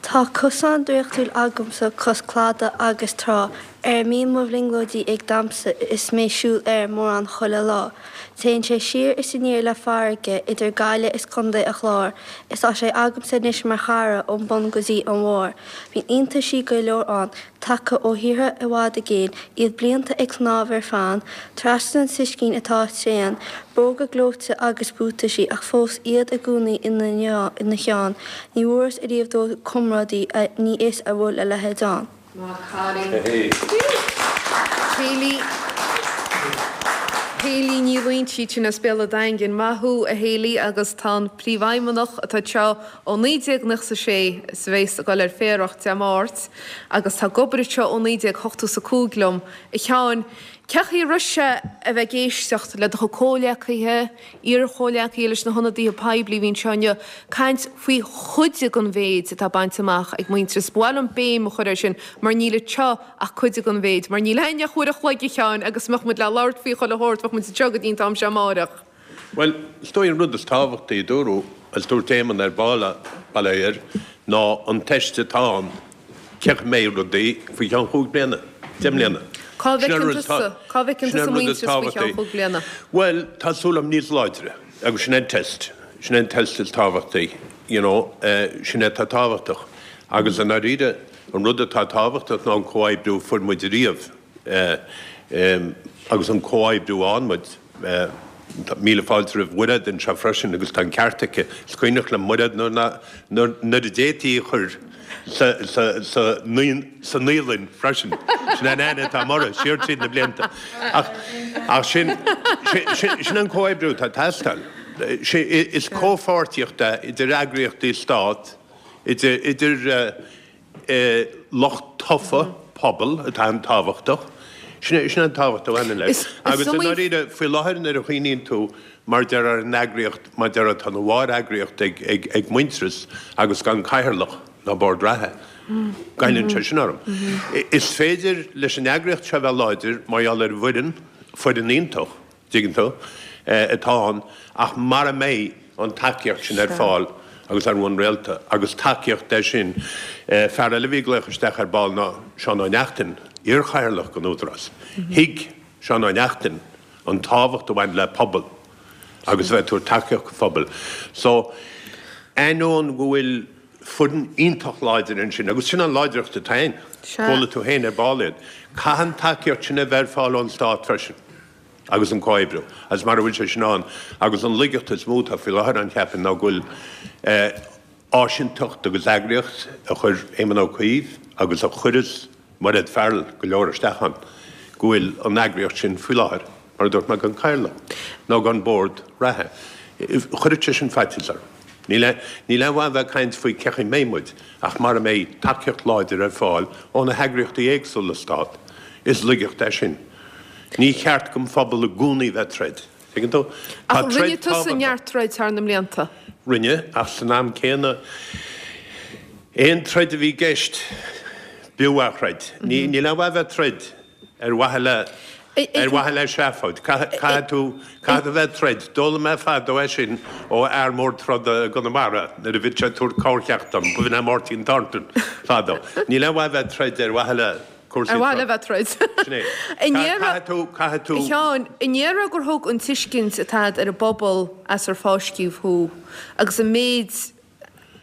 Tá cosán draíochtúil agamsa cois cladaigh agus trá, ar a mbíonn mo bhrionglóidí ag damhsa is mé siúl air mórán chuile lá. Téann sé siar is aniar le farraige idir Gaillimh is Contae a' Chláir is tá sé agamsa anois mar chara ón bun go dtí an bharr. Bíonn iontaisí go leor ann, tagtha ó thíortha i bhfad i gcéin, iad blianta ag snámh ar fán, trasna an t-uiscín atá tréan, bróga gleoite agus buataisí ach fós iad i gcónaí ina cheann. Ní bhfuarthas ariamh dóibh comrádaí, ní fhios an bhfuil a leithéid ann. Maith cailín. Hayley Hayley Ní Loingsigh sin as Béal an Daingin. Maith thú a Hayley agus tá an Príomhfheidhmeannach atá anseo ó 1996 is a bheas ag dul ar féarach Dé Máirt agus tá ag obair anseo ó 1985 liom. A Sheáin, cén chaoi a raibh sé a bheith ag éisteacht le do chuid comhghleacaithe, iar-chomhghleacaithe leis na hionadaithe poiblí a bhí anseo inniu, caint faoi chuid den mhéid atá bainte amach ag Muintearas. Ba mhaith liom béim a chur air sin mar níl anseo ach cuid den mhéid, mar níl againn ach uair a chloig, a Sheáin, agus mbeadh muid le labhairt faoi chuile shórt, bheadh muid anseo go dtí an t-am seo amáireach. Bhuel, is dóigh an rud is tábhachtaí a dúradh, agus dúirt Éamonn ar ball, bail ó Dhia air, ná an teist atá ann, cén chaoi a mbeidh rudaí faoi cheann chúig bliana, 10 mbliana. Cá bhfeiceann tusa, cá bhfeiceann tusa Muintearas faoi cheann chúig bliana? Bhuel, tá súil agam níos láidre, agus sin é an test, sin é an test is tábhachtaí, you know, sin é atá tábhachtach. Agus i ndáiríre, an rud atá tábhachtach ná an comhoibriú a fuair muid ariamh, agus an comhoibriú a fhaigheann muid. Míle fáilte roimh Mhairéad anseo freisin agus tá an ceart aici. Is cuimhneach liom Mairéad nuair a d'fhéadfaí í a chur sa naíolann freisin. Sin an aithne atá agam uirthi, siar tríd na blianta. Ach sin sin an comhoibriú atá ag teastáil. Is comhpháirtíocht é idir eagraíochtaí stát, idir lucht tofa pobal atá an-tábhachtach. Sin é an tábhacht a bhaineann leis. Agus i ndáiríre, faoi láthair nuair a chuimhníonn tú mar deir ar an eagraíocht, mar deir tá ina mháthair-eagraíocht ag Muintearas agus gan cathaoirleach ná bord reatha, goilleann sé sin orm. Is féidir leis an eagraíocht seo a bheith láidir mar gheall ar an bhfoireann, foireann iontach, dtuigeann tú, atá ann, ach mara mbeidh an tacaíocht sin ar fáil agus ar bhonn rialta, agus tacaíocht é sin, fear eile a bhí ag glaoch isteach ar ball ná Seán Ó Neachtain. iarchathaoirleach den Údarás. Thuig Seán Ó Neachtain an tábhacht a bhain le pobal agus a bheith ag tabhairt tacaíocht do phobal. So, ainneoin go bhfuil foireann iontach láidir ansin, agus sin an láidreacht atá ann, chuala tú féin ar ball iad, caithfidh an tacaíocht sin a bheith ar fáil ón Stát freisin agus an comhoibriú, agus mara bhfuil sé sin ann, agus an laigeacht is mó atá faoi láthair ann, cheapfainn, ná go bhfuil áisinteacht agus eagraíocht a chuir Éamon Ó Cuív agus a chuireas Mairéad Farrell go leor isteach ann, go bhfuil an eagraíocht sin faoi láthair, mar a dúirt mé, gan cathaoirleach nó gan bord reatha. Chuirfeadh sé sin faitíos orm. Níl níl aon mhaith a bheith ag caint faoi cén chaoi a mbeidh muid ach mara mbeidh tacaíocht láidir ar fáil ó na heagraíochtaí éagsúla Stát, is laigeacht é sin. Ní cheart don phobal i gcónaí bheith ag troid. Tuigeann tú? Tá Ach rinne troid tusa tábhachtach. neart troid thar na mblianta. Rinne, ach san am céanna, aon troid a bhí i gceist, b'fhiú a throid. Ní, níl aon mhaith a bheith ag troid ar mhaithe le, ar mhaithe le seafóid. Caithfidh, caithfidh tú, caithfidh tú bheith ag troid. D'fhoghlaim mé fadó é sin ó fhear mór troda i gConamara nuair a bhí sé ag tabhairt corrcheacht dom, b'in é Máirtín Thornton fadó. Níl aon mhaith a bheith ag troid ar mhaithe le. cúrsaí Ar mhaith le bheith troid. Sin é. Caithfidh tú, caithfidh tú. A Sheáin, an ndéarfá gur thug an tuiscint atá agat ar an bpobal as ar fáisceadh thú agus an méid,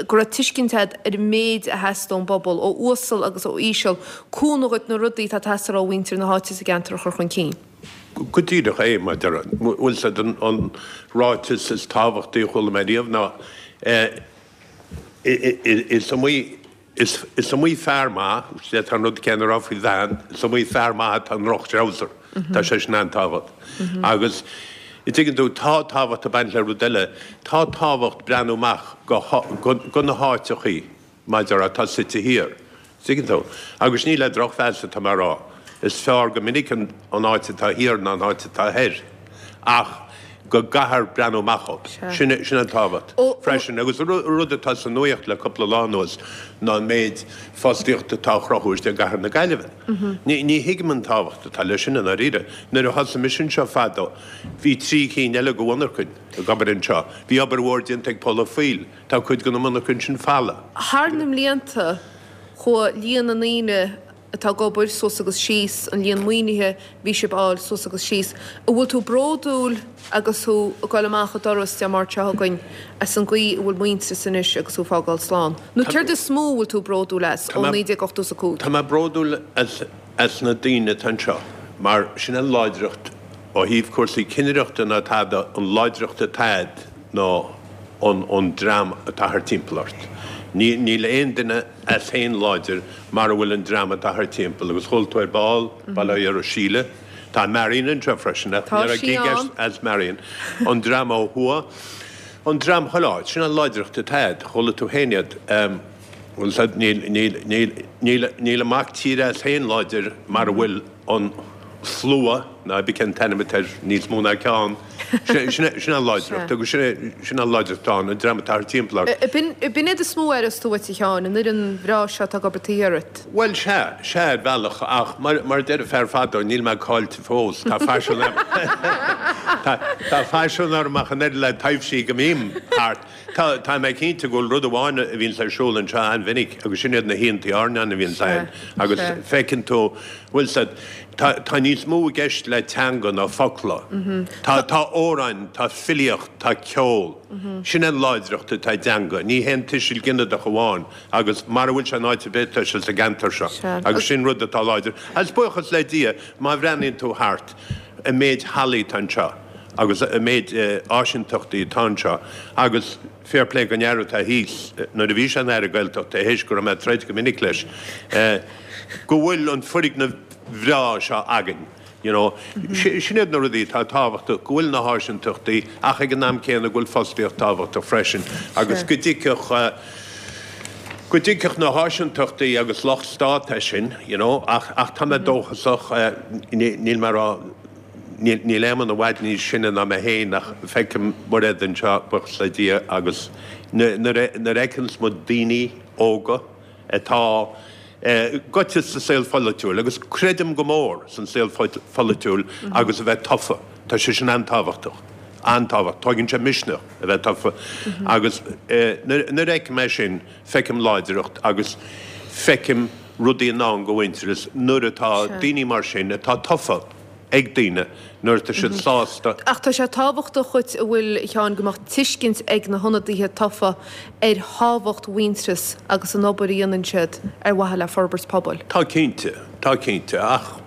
go raibh tuiscint agat ar an méid a theastaigh ón bpobal, ó uasal agus ó íseal, cúnamh dhuit na rudaí atá ag teastáil ó mhuintir na háite sa gceantar a chur chun cinn? Go díreach é, mar a déarfá. Bhfuil 's a'd, an ráiteas is tábhachtaí a chuala mé riamh ná, is iomaí Is iomaí fear maith, d'fhéadfá an rud céanna a rá faoi bhean, is iomaí fear maith atá i ndroch-threabhsar. Tá sé sin an-tábhacht. Agus, an dtuigeann tú, tá tábhacht ag baint le rud eile, tá tábhacht breathnú amach go na háiteachaí, mar a déarfá, atá suite thiar. Tuigeann tú? Agus ní le drochmheas atá mé a rá. Is fearr go minic an áit atá thiar ná an áit atá thoir. Ach go gcaithfear breathnú amach dhóibh. Sin sin an tábhacht freisin. Agus rud atá sa nuaíocht le cúpla lá anuas ná an méid fostaíochta atá á chruthú istigh i gcathair na Gaillimhe. Ní ní thuigim an tábhacht atá leis sin i ndáiríre. Nuair a thosaigh mise anseo fadó bhí trí cinn eile de mhonarchain ag obair anseo. Bhí obair mhór déanta ag Pól Ó Foighil. Tá cuid de na monarchain sin folamh. Thar na mblianta chuaigh líon na ndaoine atá ag obair suas agus síos, an líon maoinithe a bhí sibh a fháil suas agus síos. An bhfuil tú bródúil agus thú ag dul amach an doras Dé Máirt seo chugainn as an gcaoi a bhfuil Muintearas anois agus thú ag fágáil slán? Nó céard is mó a bhfuil tú bródúil as ó 1985? Tá mé bródúil as na daoine atá anseo mar sin an láidreacht ó thaobh cúrsaí cinnireachta ná tada, an láidreacht atá a'd ná an dream atá thart timpeall ort. Níl aon duine as féin láidir mara bhfuil an dream atá thart timpeall agus chuala tú ar ball, bail ó Dhia ar Síle, tá Marion anseo freisin ach ní raibh gig as as Marion, an dream ó thuaidh, an dream chuile áit, sin an láidreacht atá a'd, chuala tú féin iad, bhfuil 's a'd, níl, níl, níl, níl, níl an mac tíre as féin láidir mara bhfuil an slua, nó cibé cén t-ainm atá air, níos mó ná ceann, sin an láidreacht agus sin an láidreacht atá ann, an dream atá thart timpeall ort. B'in iad is mó a aireos tú uait, a Sheáin, an fhoireann bhreá seo atá ag obair taobh thiar díot. Bhuel, sea, sea, ar bhealach, ach mar a deireadh fear fadó, níl mé caillte fós, tá faisean orm, tá faisean orm ach an oiread le taibhsí go mbím thart. Tá, tá mé cinnte go bhfuil rud amháin a bhíonns ar siúl anseo an-mhinic agus sin iad na hoícheantaí airneáin a bhíonns againn agus feiceann tú, bhfuil 's a'd, tá, tá níos mó i gceist le teanga ná focla. Tá, tá amhráin, tá filíocht, tá ceol. Sin an láidreacht atá i dteanga, ní haon tuiseal ginideach amháin agus mara bhfuil sé in áit ar bith tá sé sa gceantar seo agus sin rud atá láidir. Agus buíochas le Dia, má bhreathnaíonn tú thart, an méid hallaí atá anseo. agus an méid áiseantachtaí atá anseo agus fair play don fhear atá thíos, nuair a bhí sé ina Aire Gaeltachta, théis go raibh mé ag troid go minic leis, go bhfuil an foirgneamh bhreá seo againn, you know. Sin iad na rudaí atá tábhachtach, go bhfuil na háiseantachtaí ach ag an am céanna go bhfuil fostaíocht tábhachtach freisin agus go dtiocfadh, go dtiocfadh na háiseantachtaí agus locht stát é sin, you know, ach, ach tá mé dóchasach, níl mé ag rá, Níl Éamonn i bhfad níos sine ná mé féin ach feicim Mairéad anseo, buíochas le Dia, agus nuair a fheiceanns muid daoine óga atá gaibhte sa saol pholaitiúil, agus creidim go mór san saol pholaitiúil agus a bheith tofa, tá sé sin an-tábhachtach, an-tábhachtach, tóigeann sé misneach a bheith tofa agus nuair a fheicim é sin, feicim láidreacht agus feicim. rudaí i ndán do Mhuintearas nuair atá daoine mar sin atá tofa ag daoine, nuair atá siad sásta. Ach tá sé tábhachtach dhuit, an bhfuil, a Sheáin, go mbeadh tuiscint ag na hionadaithe tofa ar thábhacht Mhuintearas agus an obair a dhéanann siad ar mhaithe le forbairt pobail. Tá cinnte, tá cinnte, ach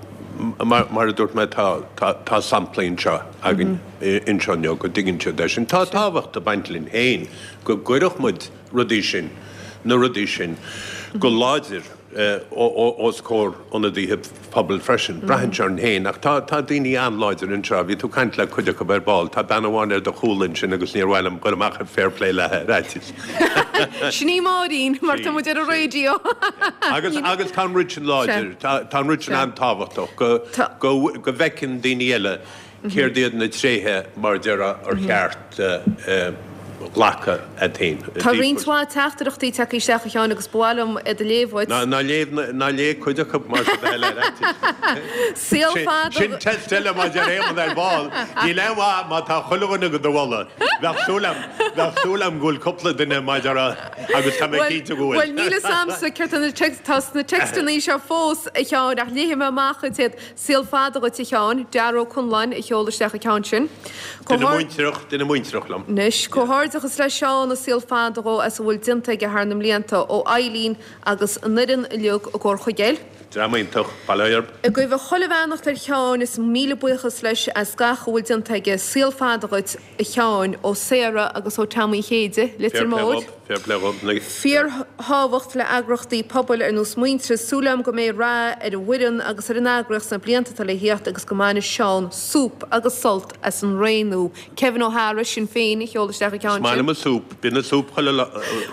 mar a dúirt mé tá, tá, tá samplaí anseo againn anseo inniu go dtuigeann siad é sin. Tá tábhacht ag baint linn féin go gcuirfeadh muid rudaí sin, na rudaí sin go láidir os comhair ionadaithe pobail freisin. Braitheann sé orainn féin ach tá, tá daoine an-láidir anseo. Bhí tú ag caint le cuid acu ar ball. Tá bean amháin ar do chúl ansin agus níor mhaith liom dul amach ar fair play léi ar fhaitíos. Sin í Máirín, mar tá muid ar an raidió. Agus, agus tá an rud sin láidir, tá, tá an rud sin an-tábhachtach go, go, go bhfeiceann daoine eile Céard iad na tréithe, mar a déarfá, ar cheart glacadh agat féin? Tá roinnt mhaith teachtaireachtaí tagtha isteach, a Sheáin, agus ba mhaith liom iad a léamh dhuit. Ná léigh, ná léigh cuid acu mar sin de le fhaitíos. Saol fada. Sin test eile mar a deir Éamonn ar ball. Níl aon mhaith má tá chuile dhuine do do mholadh. Bheadh súil agam, bheadh súil agam go bhfuil cúpla duine mar a déarfá agus tá mé cinnte go bhfuil. Bhuel, níl fhios a'msa céard tá na text, tá sna téacsanna seo fós, a Sheáin, ach léifidh mé amach dhuit iad. Saol fada dhuit a Sheáin, Dara Ó Conláin a sheol isteach an ceann sin. Duine muintearach, duine muintearach liom. Anois, comhghairdeachas le Seán is saol fada dhó as a bhfuil déanta aige thar na mblianta, ó Eileen agus an fhoireann uilig i gComhar Chuigéil. Dream iontach, bail ó Dhia orthu. Ag guí chuile bheannacht ar Sheán is míle buíochas leis as gach a bhfuil déanta aige. Saol fada dhuit. a Sheáin, ó Sarah agus ó Tom Uí Chéide, Leitir Móir. Fair play dhób. Fíorthábhacht le eagraíochtaí pobail ar nós Muintearas, súil agam go mbeidh rath ar an bhfoireann agus ar an eagraíocht sna blianta atá le thíocht agus go mbainfidh Seán súp agus sult as an ré nua. Kevin O'Hara, Sinn Féin, a sheol isteach an ceann sin. Is maith liom an súp, bíonn an súp chuile lá.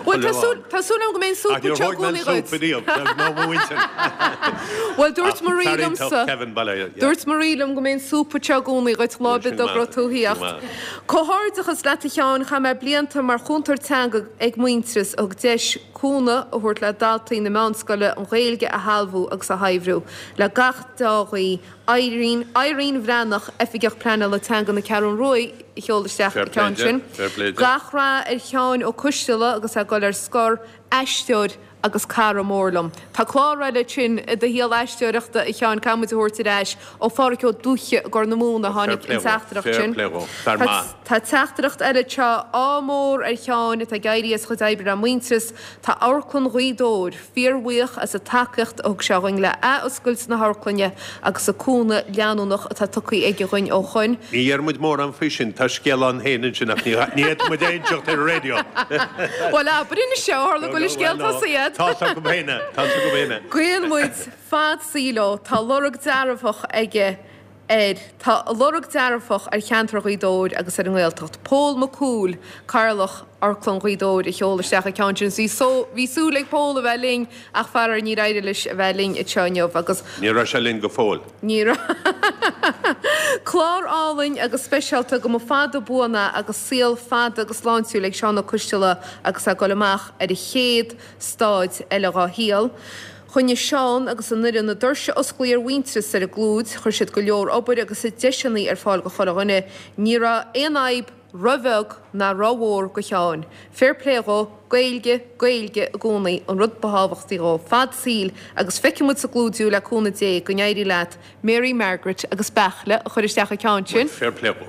Bhuel, tá súil, tá súil agam go mbeidh an súp Ach níor anseo i thóg mé gcónaí an súp dhuit. ariamh, ná mo mhuintir. Bhuel, dúirt Ach Marie fear iontach, liomsa, Kevin, bail ó Dhia, yeah. dúirt Marie liom go mbeidh an súp anseo i gcónaí dhuit lá ar bith dá raibh tú a Sin thíocht. maith. Comhghairdeachas leat a Sheáin, chaith mé blianta mar chúntóir teanga ag Muintearas a thug deis cúnamh a thabhairt le daltaí na meánscoile an Ghaeilge a shealbhú agus a shaibhriú. Le gach dea-ghuí, Irene, Irene Bhreathnach, Oifigeach Pleanála Teanga na Ceathrún Ruaidh a sheol isteach Fair an play ceann di, sin. fair play di. Gach rath ar Sheáin Ó Coisteala agus é ag dul ar scor, aisteoir agus cara mór liom. Tá clár eile ansin i do shaol aisteoireachta, a Sheáin, caithfidh muid a thabhairt ar ais. Ó Pháraic Ó Dúiche i gCorr na Móna a tháinig an teachtaireacht sin. Tá teachtaireacht eile anseo, ádh mór ar Sheáin atá ag éirí as a chuid oibre le Muintearas. Tá Amharclann Ghaoth Dobhair fíorbhuíoch as an tacaíocht a thug sé dhuinn le athoscailt na hamharclainne agus an cúnamh leanúnach atá tugtha aige dhuinn ó shoin. Ní dheir muid mórán faoi sin, tá scéal ann féin ansin ach ní fhéadfaidh muid é a inseacht ar an raidió. Bhuel, abair anois é, ó tharla go bhfuil an scéal tosaithe agat. Tá's acu féin é, tá's acu féin é. Guíonn muid fad saoil dó, tá lorg dearfach aige ar, tá a lorg dearfach ar cheantar Ghaoth Dobhair agus ar an nGaeltacht. Pól Mac Cumhaill, Cathaoirleach Amharclann Ghaoth Dobhair a sheol isteach an ceann sin. Bhí só, bhí súil ag Pól a bheith linn ach faraor níor éirigh leis a bheith linn anseo inniu agus. Ní raibh sé linn go fóill. Ní raibh. Clár álainn agus speisialta go mba fada buan é agus saol fada agus sláintiúil ag Seán Ó Coisteala agus é ag dul amach ar an chéad staid eile dhá shaol. Choinnigh Seán agus an fhoireann na doirse osclaí ar Mhuintearas ar an gClúid, chuir siad go leor obair agus deiseanna ar fáil go chuile dhuine. Ní raibh aon fhadhb ro-bheag ná ro-mhór go Sheáin. Fair play dhó, Gaeilge, Gaeilge i gcónaí an rud ba thábhachtaí dhó. Fad saoil agus feicfidh muid sa gClúid thú le cúnamh Dé, go n-éirí leat Mary Margaret agus Beairtle a chuir isteach an ceann sin. Fair play dhó.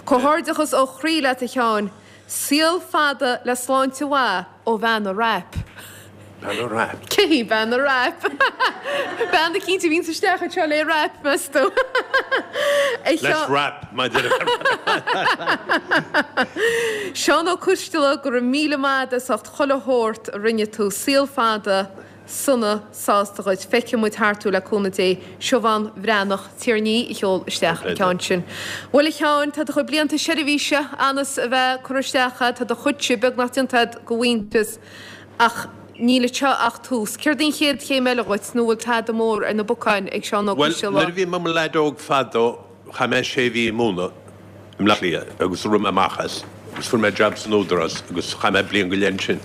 Comhghairdeachas ó chroí leat a Sheáin. Saol fada le sláinte mhaith ó bhean a' wrap. Bean a' wrap? Cé hí bean a' wrap? Bean eicínt a bhíonns isteach anseo le wrap, meas tú? Let's wrap, my dear. Seán Ó Coisteala, go raibh míle maith agat as ucht chuile shórt a rinne tú. Saol fada. sona sásta dhuit. Feicfidh muid thart thú le cúnamh Dé. Siobhán Bhreathnach, Tír an Fhia a sheol isteach an ceann sin. Bhuel a Sheáin, tá do chuid blianta seirbhíse anas a bheith curtha isteach agat, tá do chuidse beagnach déanta agat go Mhuintearas ach níl anseo ach tús. Céard í an chéad chéim eile dhuit nó bhfuil tada mór ar na bacáin ag Seán Ó Bhuel, Coisteala? nuair a bhí mé i mo leaid óg fadó, Chaith mé sé mhí ag múineadh i mBleá Cliath agus rith mé amach as agus fuair mé jab san Údarás agus chaith mé bliain go leith ansin.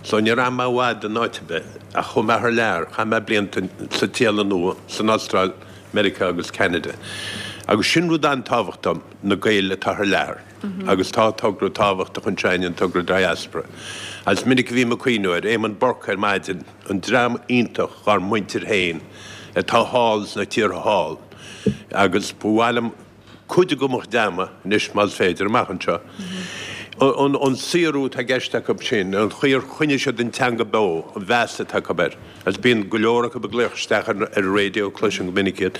So níor fhan mé i bhfad in áit ar bith ach chuaigh mé thar lear, chaith mé blianta sa tSéalainn Nua, san Astráil, Meiriceá agus Ceanada. Agus sin rud an-tábhachtach dom, na Gaeil atá thar lear. Agus tá togra tábhachtach anseo againn, an togra Diaspora. Agus is minic a bhím ag cuimhniú ar Éamonn Burke ar maidin, an dream iontach dhár muintir féin atá thall sna tíortha thall. Agus ba mhaith liom cuid acu a ghreamú anois más féidir, amach anseo. An saothrú atá i gceist acu sin, an chaoi ar choinnigh siad an teanga beo, an mheas atá acu air. Agus bíonn go leor acu ag glaoch isteach ar an raidió, cloisim go minic iad.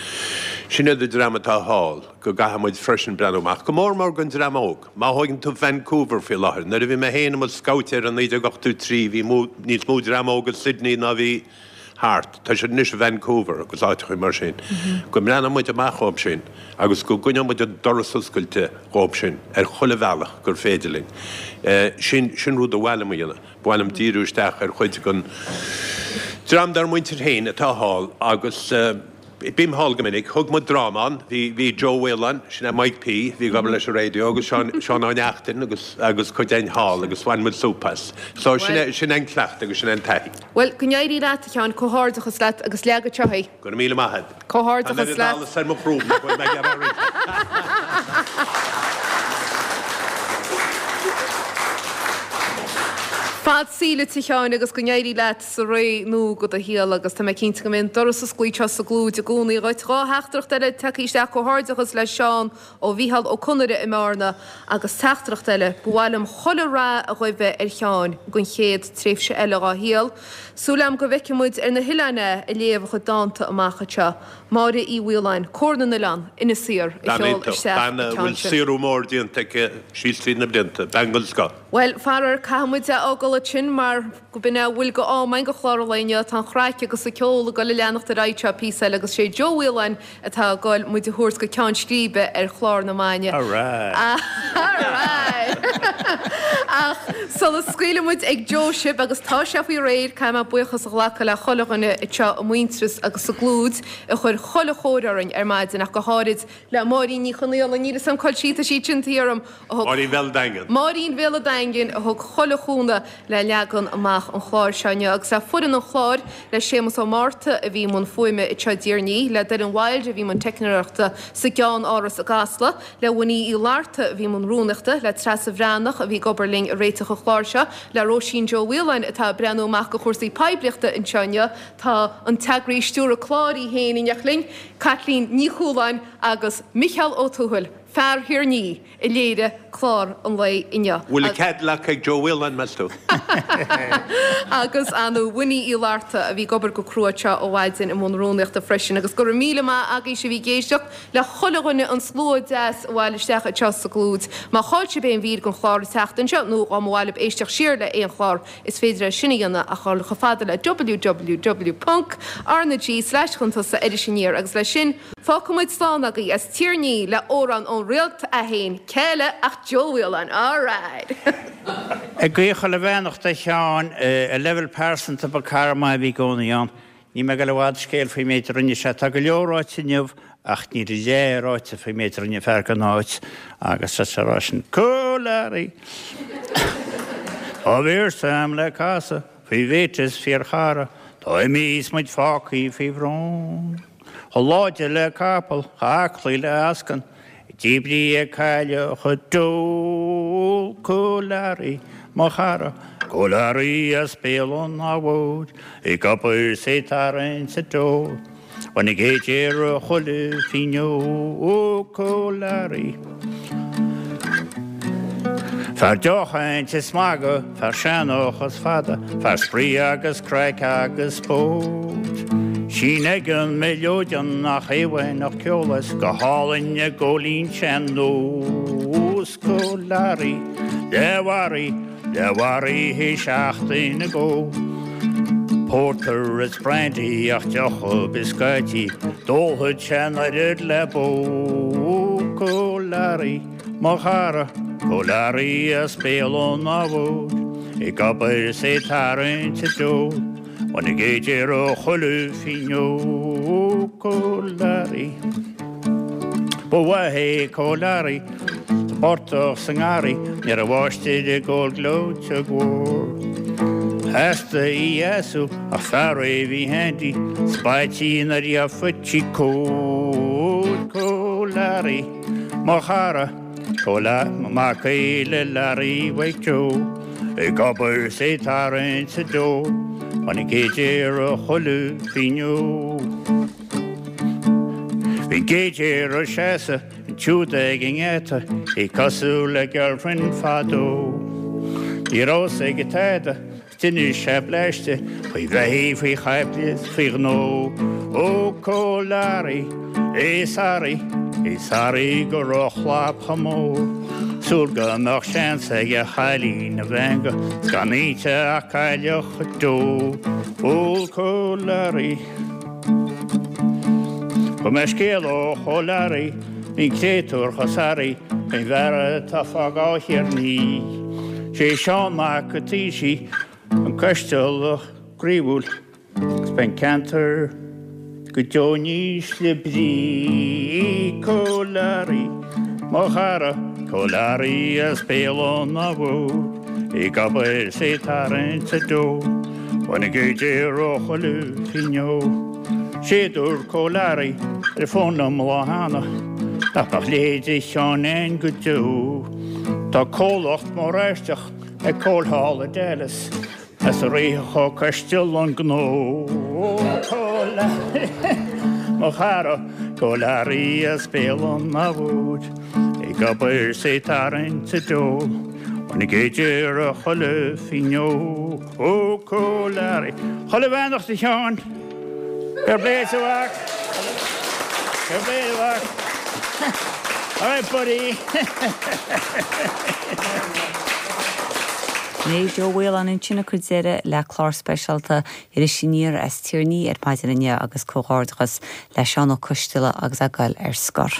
Sin iad an dream atá thall, go gcaithfidh muid freisin breathnú amach, go mór mór don dream óg. Má thóigeann tú Vancouver faoi láthair, nuair a bhí mé féin i mo scabhtéir i 1983 bhí níos mó dream óg i Sydney ná bhí thart. Tá siad anois i Vancouver agus áiteachaí mar sin. Go mbreathnóidh muid amach dhóibh sin agus go gcoinneoidh muid an doras oscailte dhóibh sin ar chuile bhealach gur féidir linn. Sin, sin rud a ba mhaith liom a dhéanamh. Ba mhaith liom díriú isteach ar chuid den dream dár muintir féin atá thall agus bím thall go minic. Thug muid dráma ann. Bhí, bhí Joe Whelan, sin é Mike P, bhí ag obair leis an raidió agus Seán, Seán Ó Neachtain agus, agus cuid againn thall agus bhain muid súp as. So sin é, sin é an cleachtadh agus sin é an taithí. Bhuel, go n-éirí leat, a Sheáin. Comhghairdeachas leat agus leag anseo é. Go raibh míle maith agat. Comhghairdeachas leat. Tá an oiread allas ar mo chrúb nach bhfuil mé ag iarraidh a roinnt. Fad saoil duit, a Sheáin, agus go n-éirí leat sa ré nua de do shaol agus tá mé cinnte go mbeidh an doras oscailte anseo sa gClúid i gcónaí dhuit. 2 theachtaireacht eile tagtha isteach, Comhghairdeachas le Seán ó Mhícheál Ó Conaire i mBearna agus teachtaireacht eile, Ba mhaith liom chuile rath a ghuí ar Sheáin don chéad tréimhse eile dhá shaol. Súil agam go bhfeicfidh muid ar na hoileáin é ag léamh a chuid dánta amach anseo. Máire Uí Mhaoláin, Comhar na nOileán, Inis Oírr, a Bean sheol iontach, isteach bean an a ceann bhfuil sin. saothrú mór déanta aici síos tríd na blianta, bean den scoth. Bhuel, faraor, caithfidh muid é fhágáil ansin mar go b'in é a bhfuil d'am againn do chlár an lae inniu. Tá an chraic agus an ceol ag dul a leanacht ar aghaidh anseo píosa eile agus sé Joe Whelan atá ag dul muid a thabhairt go ceann scríbe ar chlár na maidne. Alright! Alright! Ach sula scaoilfidh muid ag Joe sibh, agus tá sé faoi réir, caithfidh mé buíochas a ghlacadh le chuile dhuine anseo i Muintearas agus sa gClúid a chuir chuile chóir orainn ar maidin ach go háirid le Máirín Ní Chonaola, níl 'fhios a'm cá bhfuil sí, tá sí ansin thiar orm, a thug. Máirín Bhéal an Daingin. Máirín Bhéal an Daingin a thug chuile chúnamh le leagan amach an chláir seo inniu agus le foireann an chláir, le Séamus Ó Márta a bhí i mbun fuaime anseo i dTír an Fhia, le Doireann Wilde a bhí i mbun teicneoireachta sa gceann-áras i gCasla, le Winnie Uí Fhlatharta a bhí i mbun rúnaíochta, le Treasa Bhreathnach a bhí ag obair linn ag réiteach an chláir seo, le Róisín Joe Whelan atá ag breathnú amach do chúrsaí poiblíochta anseo inniu, tá an t-eagraí stiúradh cláir í féin in éineacht linn, Caitlín Ní Chualáin agus Micheál Ó Tuathail, fear Thír an Fhia, a léirigh clár an lae inniu. Bhfuil a Cadillac ag Joe Whelan, meas tú? Agus ar ndóigh Winnie Uí Fhlatharta a bhí ag obair go crua anseo ó mhaidin i mbun rúnaíochta freisin. Agus go raibh míle maith agaibhse a bhí ag éisteacht le chuile dhuine an slua deas a bhailigh isteach anseo sa gClúid. Má chaill sibh aon mhír den chlár an tseachtain seo nó dá mba mhaith libh éisteacht siar le aon chlár Is féidir é sin a dhéanamh ach dhul chomh fada le www ponc RnaG slash chun tosaigh Iris Aniar agus leis sin fágfaidh muid slán agaibh as Tír an Fhia le amhrán ón Réalt é féin, cé eile ach Joe Whelan, alright! Ag guí chuile bheannacht a Sheáin, ar leibhéal pearsanta ba cara maith a bhí i gcónaí ann. Níl mé ag dul i bhfad scéal faoin méid a rinne sé. Tá go leor ráite inniu ach níl a leath ráite faoin méid a rinne an fear don áit agus tá sé a rá sin Coollarry! Tá véarsa a'm le casadh faoi mhate is fíorchara, tá imithe is muid fágthaí faoi bhrón. Chomh láidir le capall, chomh aclaí le eascann, Díbrithe ag cailleach a d'ól Coollarry, mo chara, Coollarry as Béal an Átha Mhóir, ag obair 's ag tarraingt an deoir, Bhain a gcéad ar chuile fíneog Coollarry. Fear deochaint is magadh, fear seanchas fada, fear spraoi agus craic agus spóirt. Sín ag an mileoidean nach aoibhinn ceol is go hálainn ag góilín sean-nós Coollarry le Mhary, le Mhary théis seachtain ag ól. Porter is brandy ach deoch ar bith scaití, d'ólfadh sé an oiread le bó Coollarry, mo chara, Coollarry as Béal an Átha Mhóir, ag obair is é tarraingt a deor. Bhain a gcéad ar chuile fíneog Coollarry. Ba mhaith é Coollarry sa bportach sa ngarraí, ní raibh máistir ag ól gleoite mhór. Theastaigh í a leasú ach fear é bhí handy, spaití nuair a gheofaí cóir Coollarry, mo chara. Mac le Larry Mhaidhc Joe, ag obair 's ag tarraingt sa deo, chun an gcéad ar chuile phingin. Bhí an gcéad ag seasamh ansiúd ag an ngeata, í cosúil le girlfriend fadó. Ní raibh 's aige tada. D'inis sé bleaiste faoi bheithígh, faoi chaiple is faoi ghnó. Ó Cóil Learaí, é sorry, é sorry go raibh a chlab chomh mór. Súil go mbeadh seans ag a chailín a mheangadh 's gan inti ach cailleach go deo. Ó Cóil Learaí. Fuair mé scéal ó Chóil Learaí, bhí an créatúr chomh sorry faoin bhfear atá ag fágáil Thír an Fhia. Sé Seán Mac an Taoisigh an Coistealach croíúil agus beidh an ceantar go deo in ísle brí. Cóil Learaí, mo chara, Cóil Learaí as Béal an Átha ag obair 's ag tarraingt sa deo. Bhain a gcuid ó chuile phingin. Sé a dúirt Cóil Learaí ar an bhfón liom an lá cheana, nach mbeadh a leithéid de Sheán ann go deo. Tá comhlacht mór aisteach ag Cóil thall i Dallas as a rithfeadh Ó Coistealbha an gnó. Ó Cóil Learaí, mo chara, Cóil Learaí as Béal an Átha ag obair 's ag tarraingt sa deo. Bhain a gcuid ar chuile phingin. Ó Cóil Learaí. Chuile bheannacht a Sheáin. Fair play a mhac. Fair play a mhac. All right buddy. B'in é Joe Mhaoláin ansin ag cur deireadh le clár speisialta Iris Aniar as Tír an Fhia ar maidin inniu agus comhghairdeachas le Seán Ó Coistealbha agus é ag goil ar scor.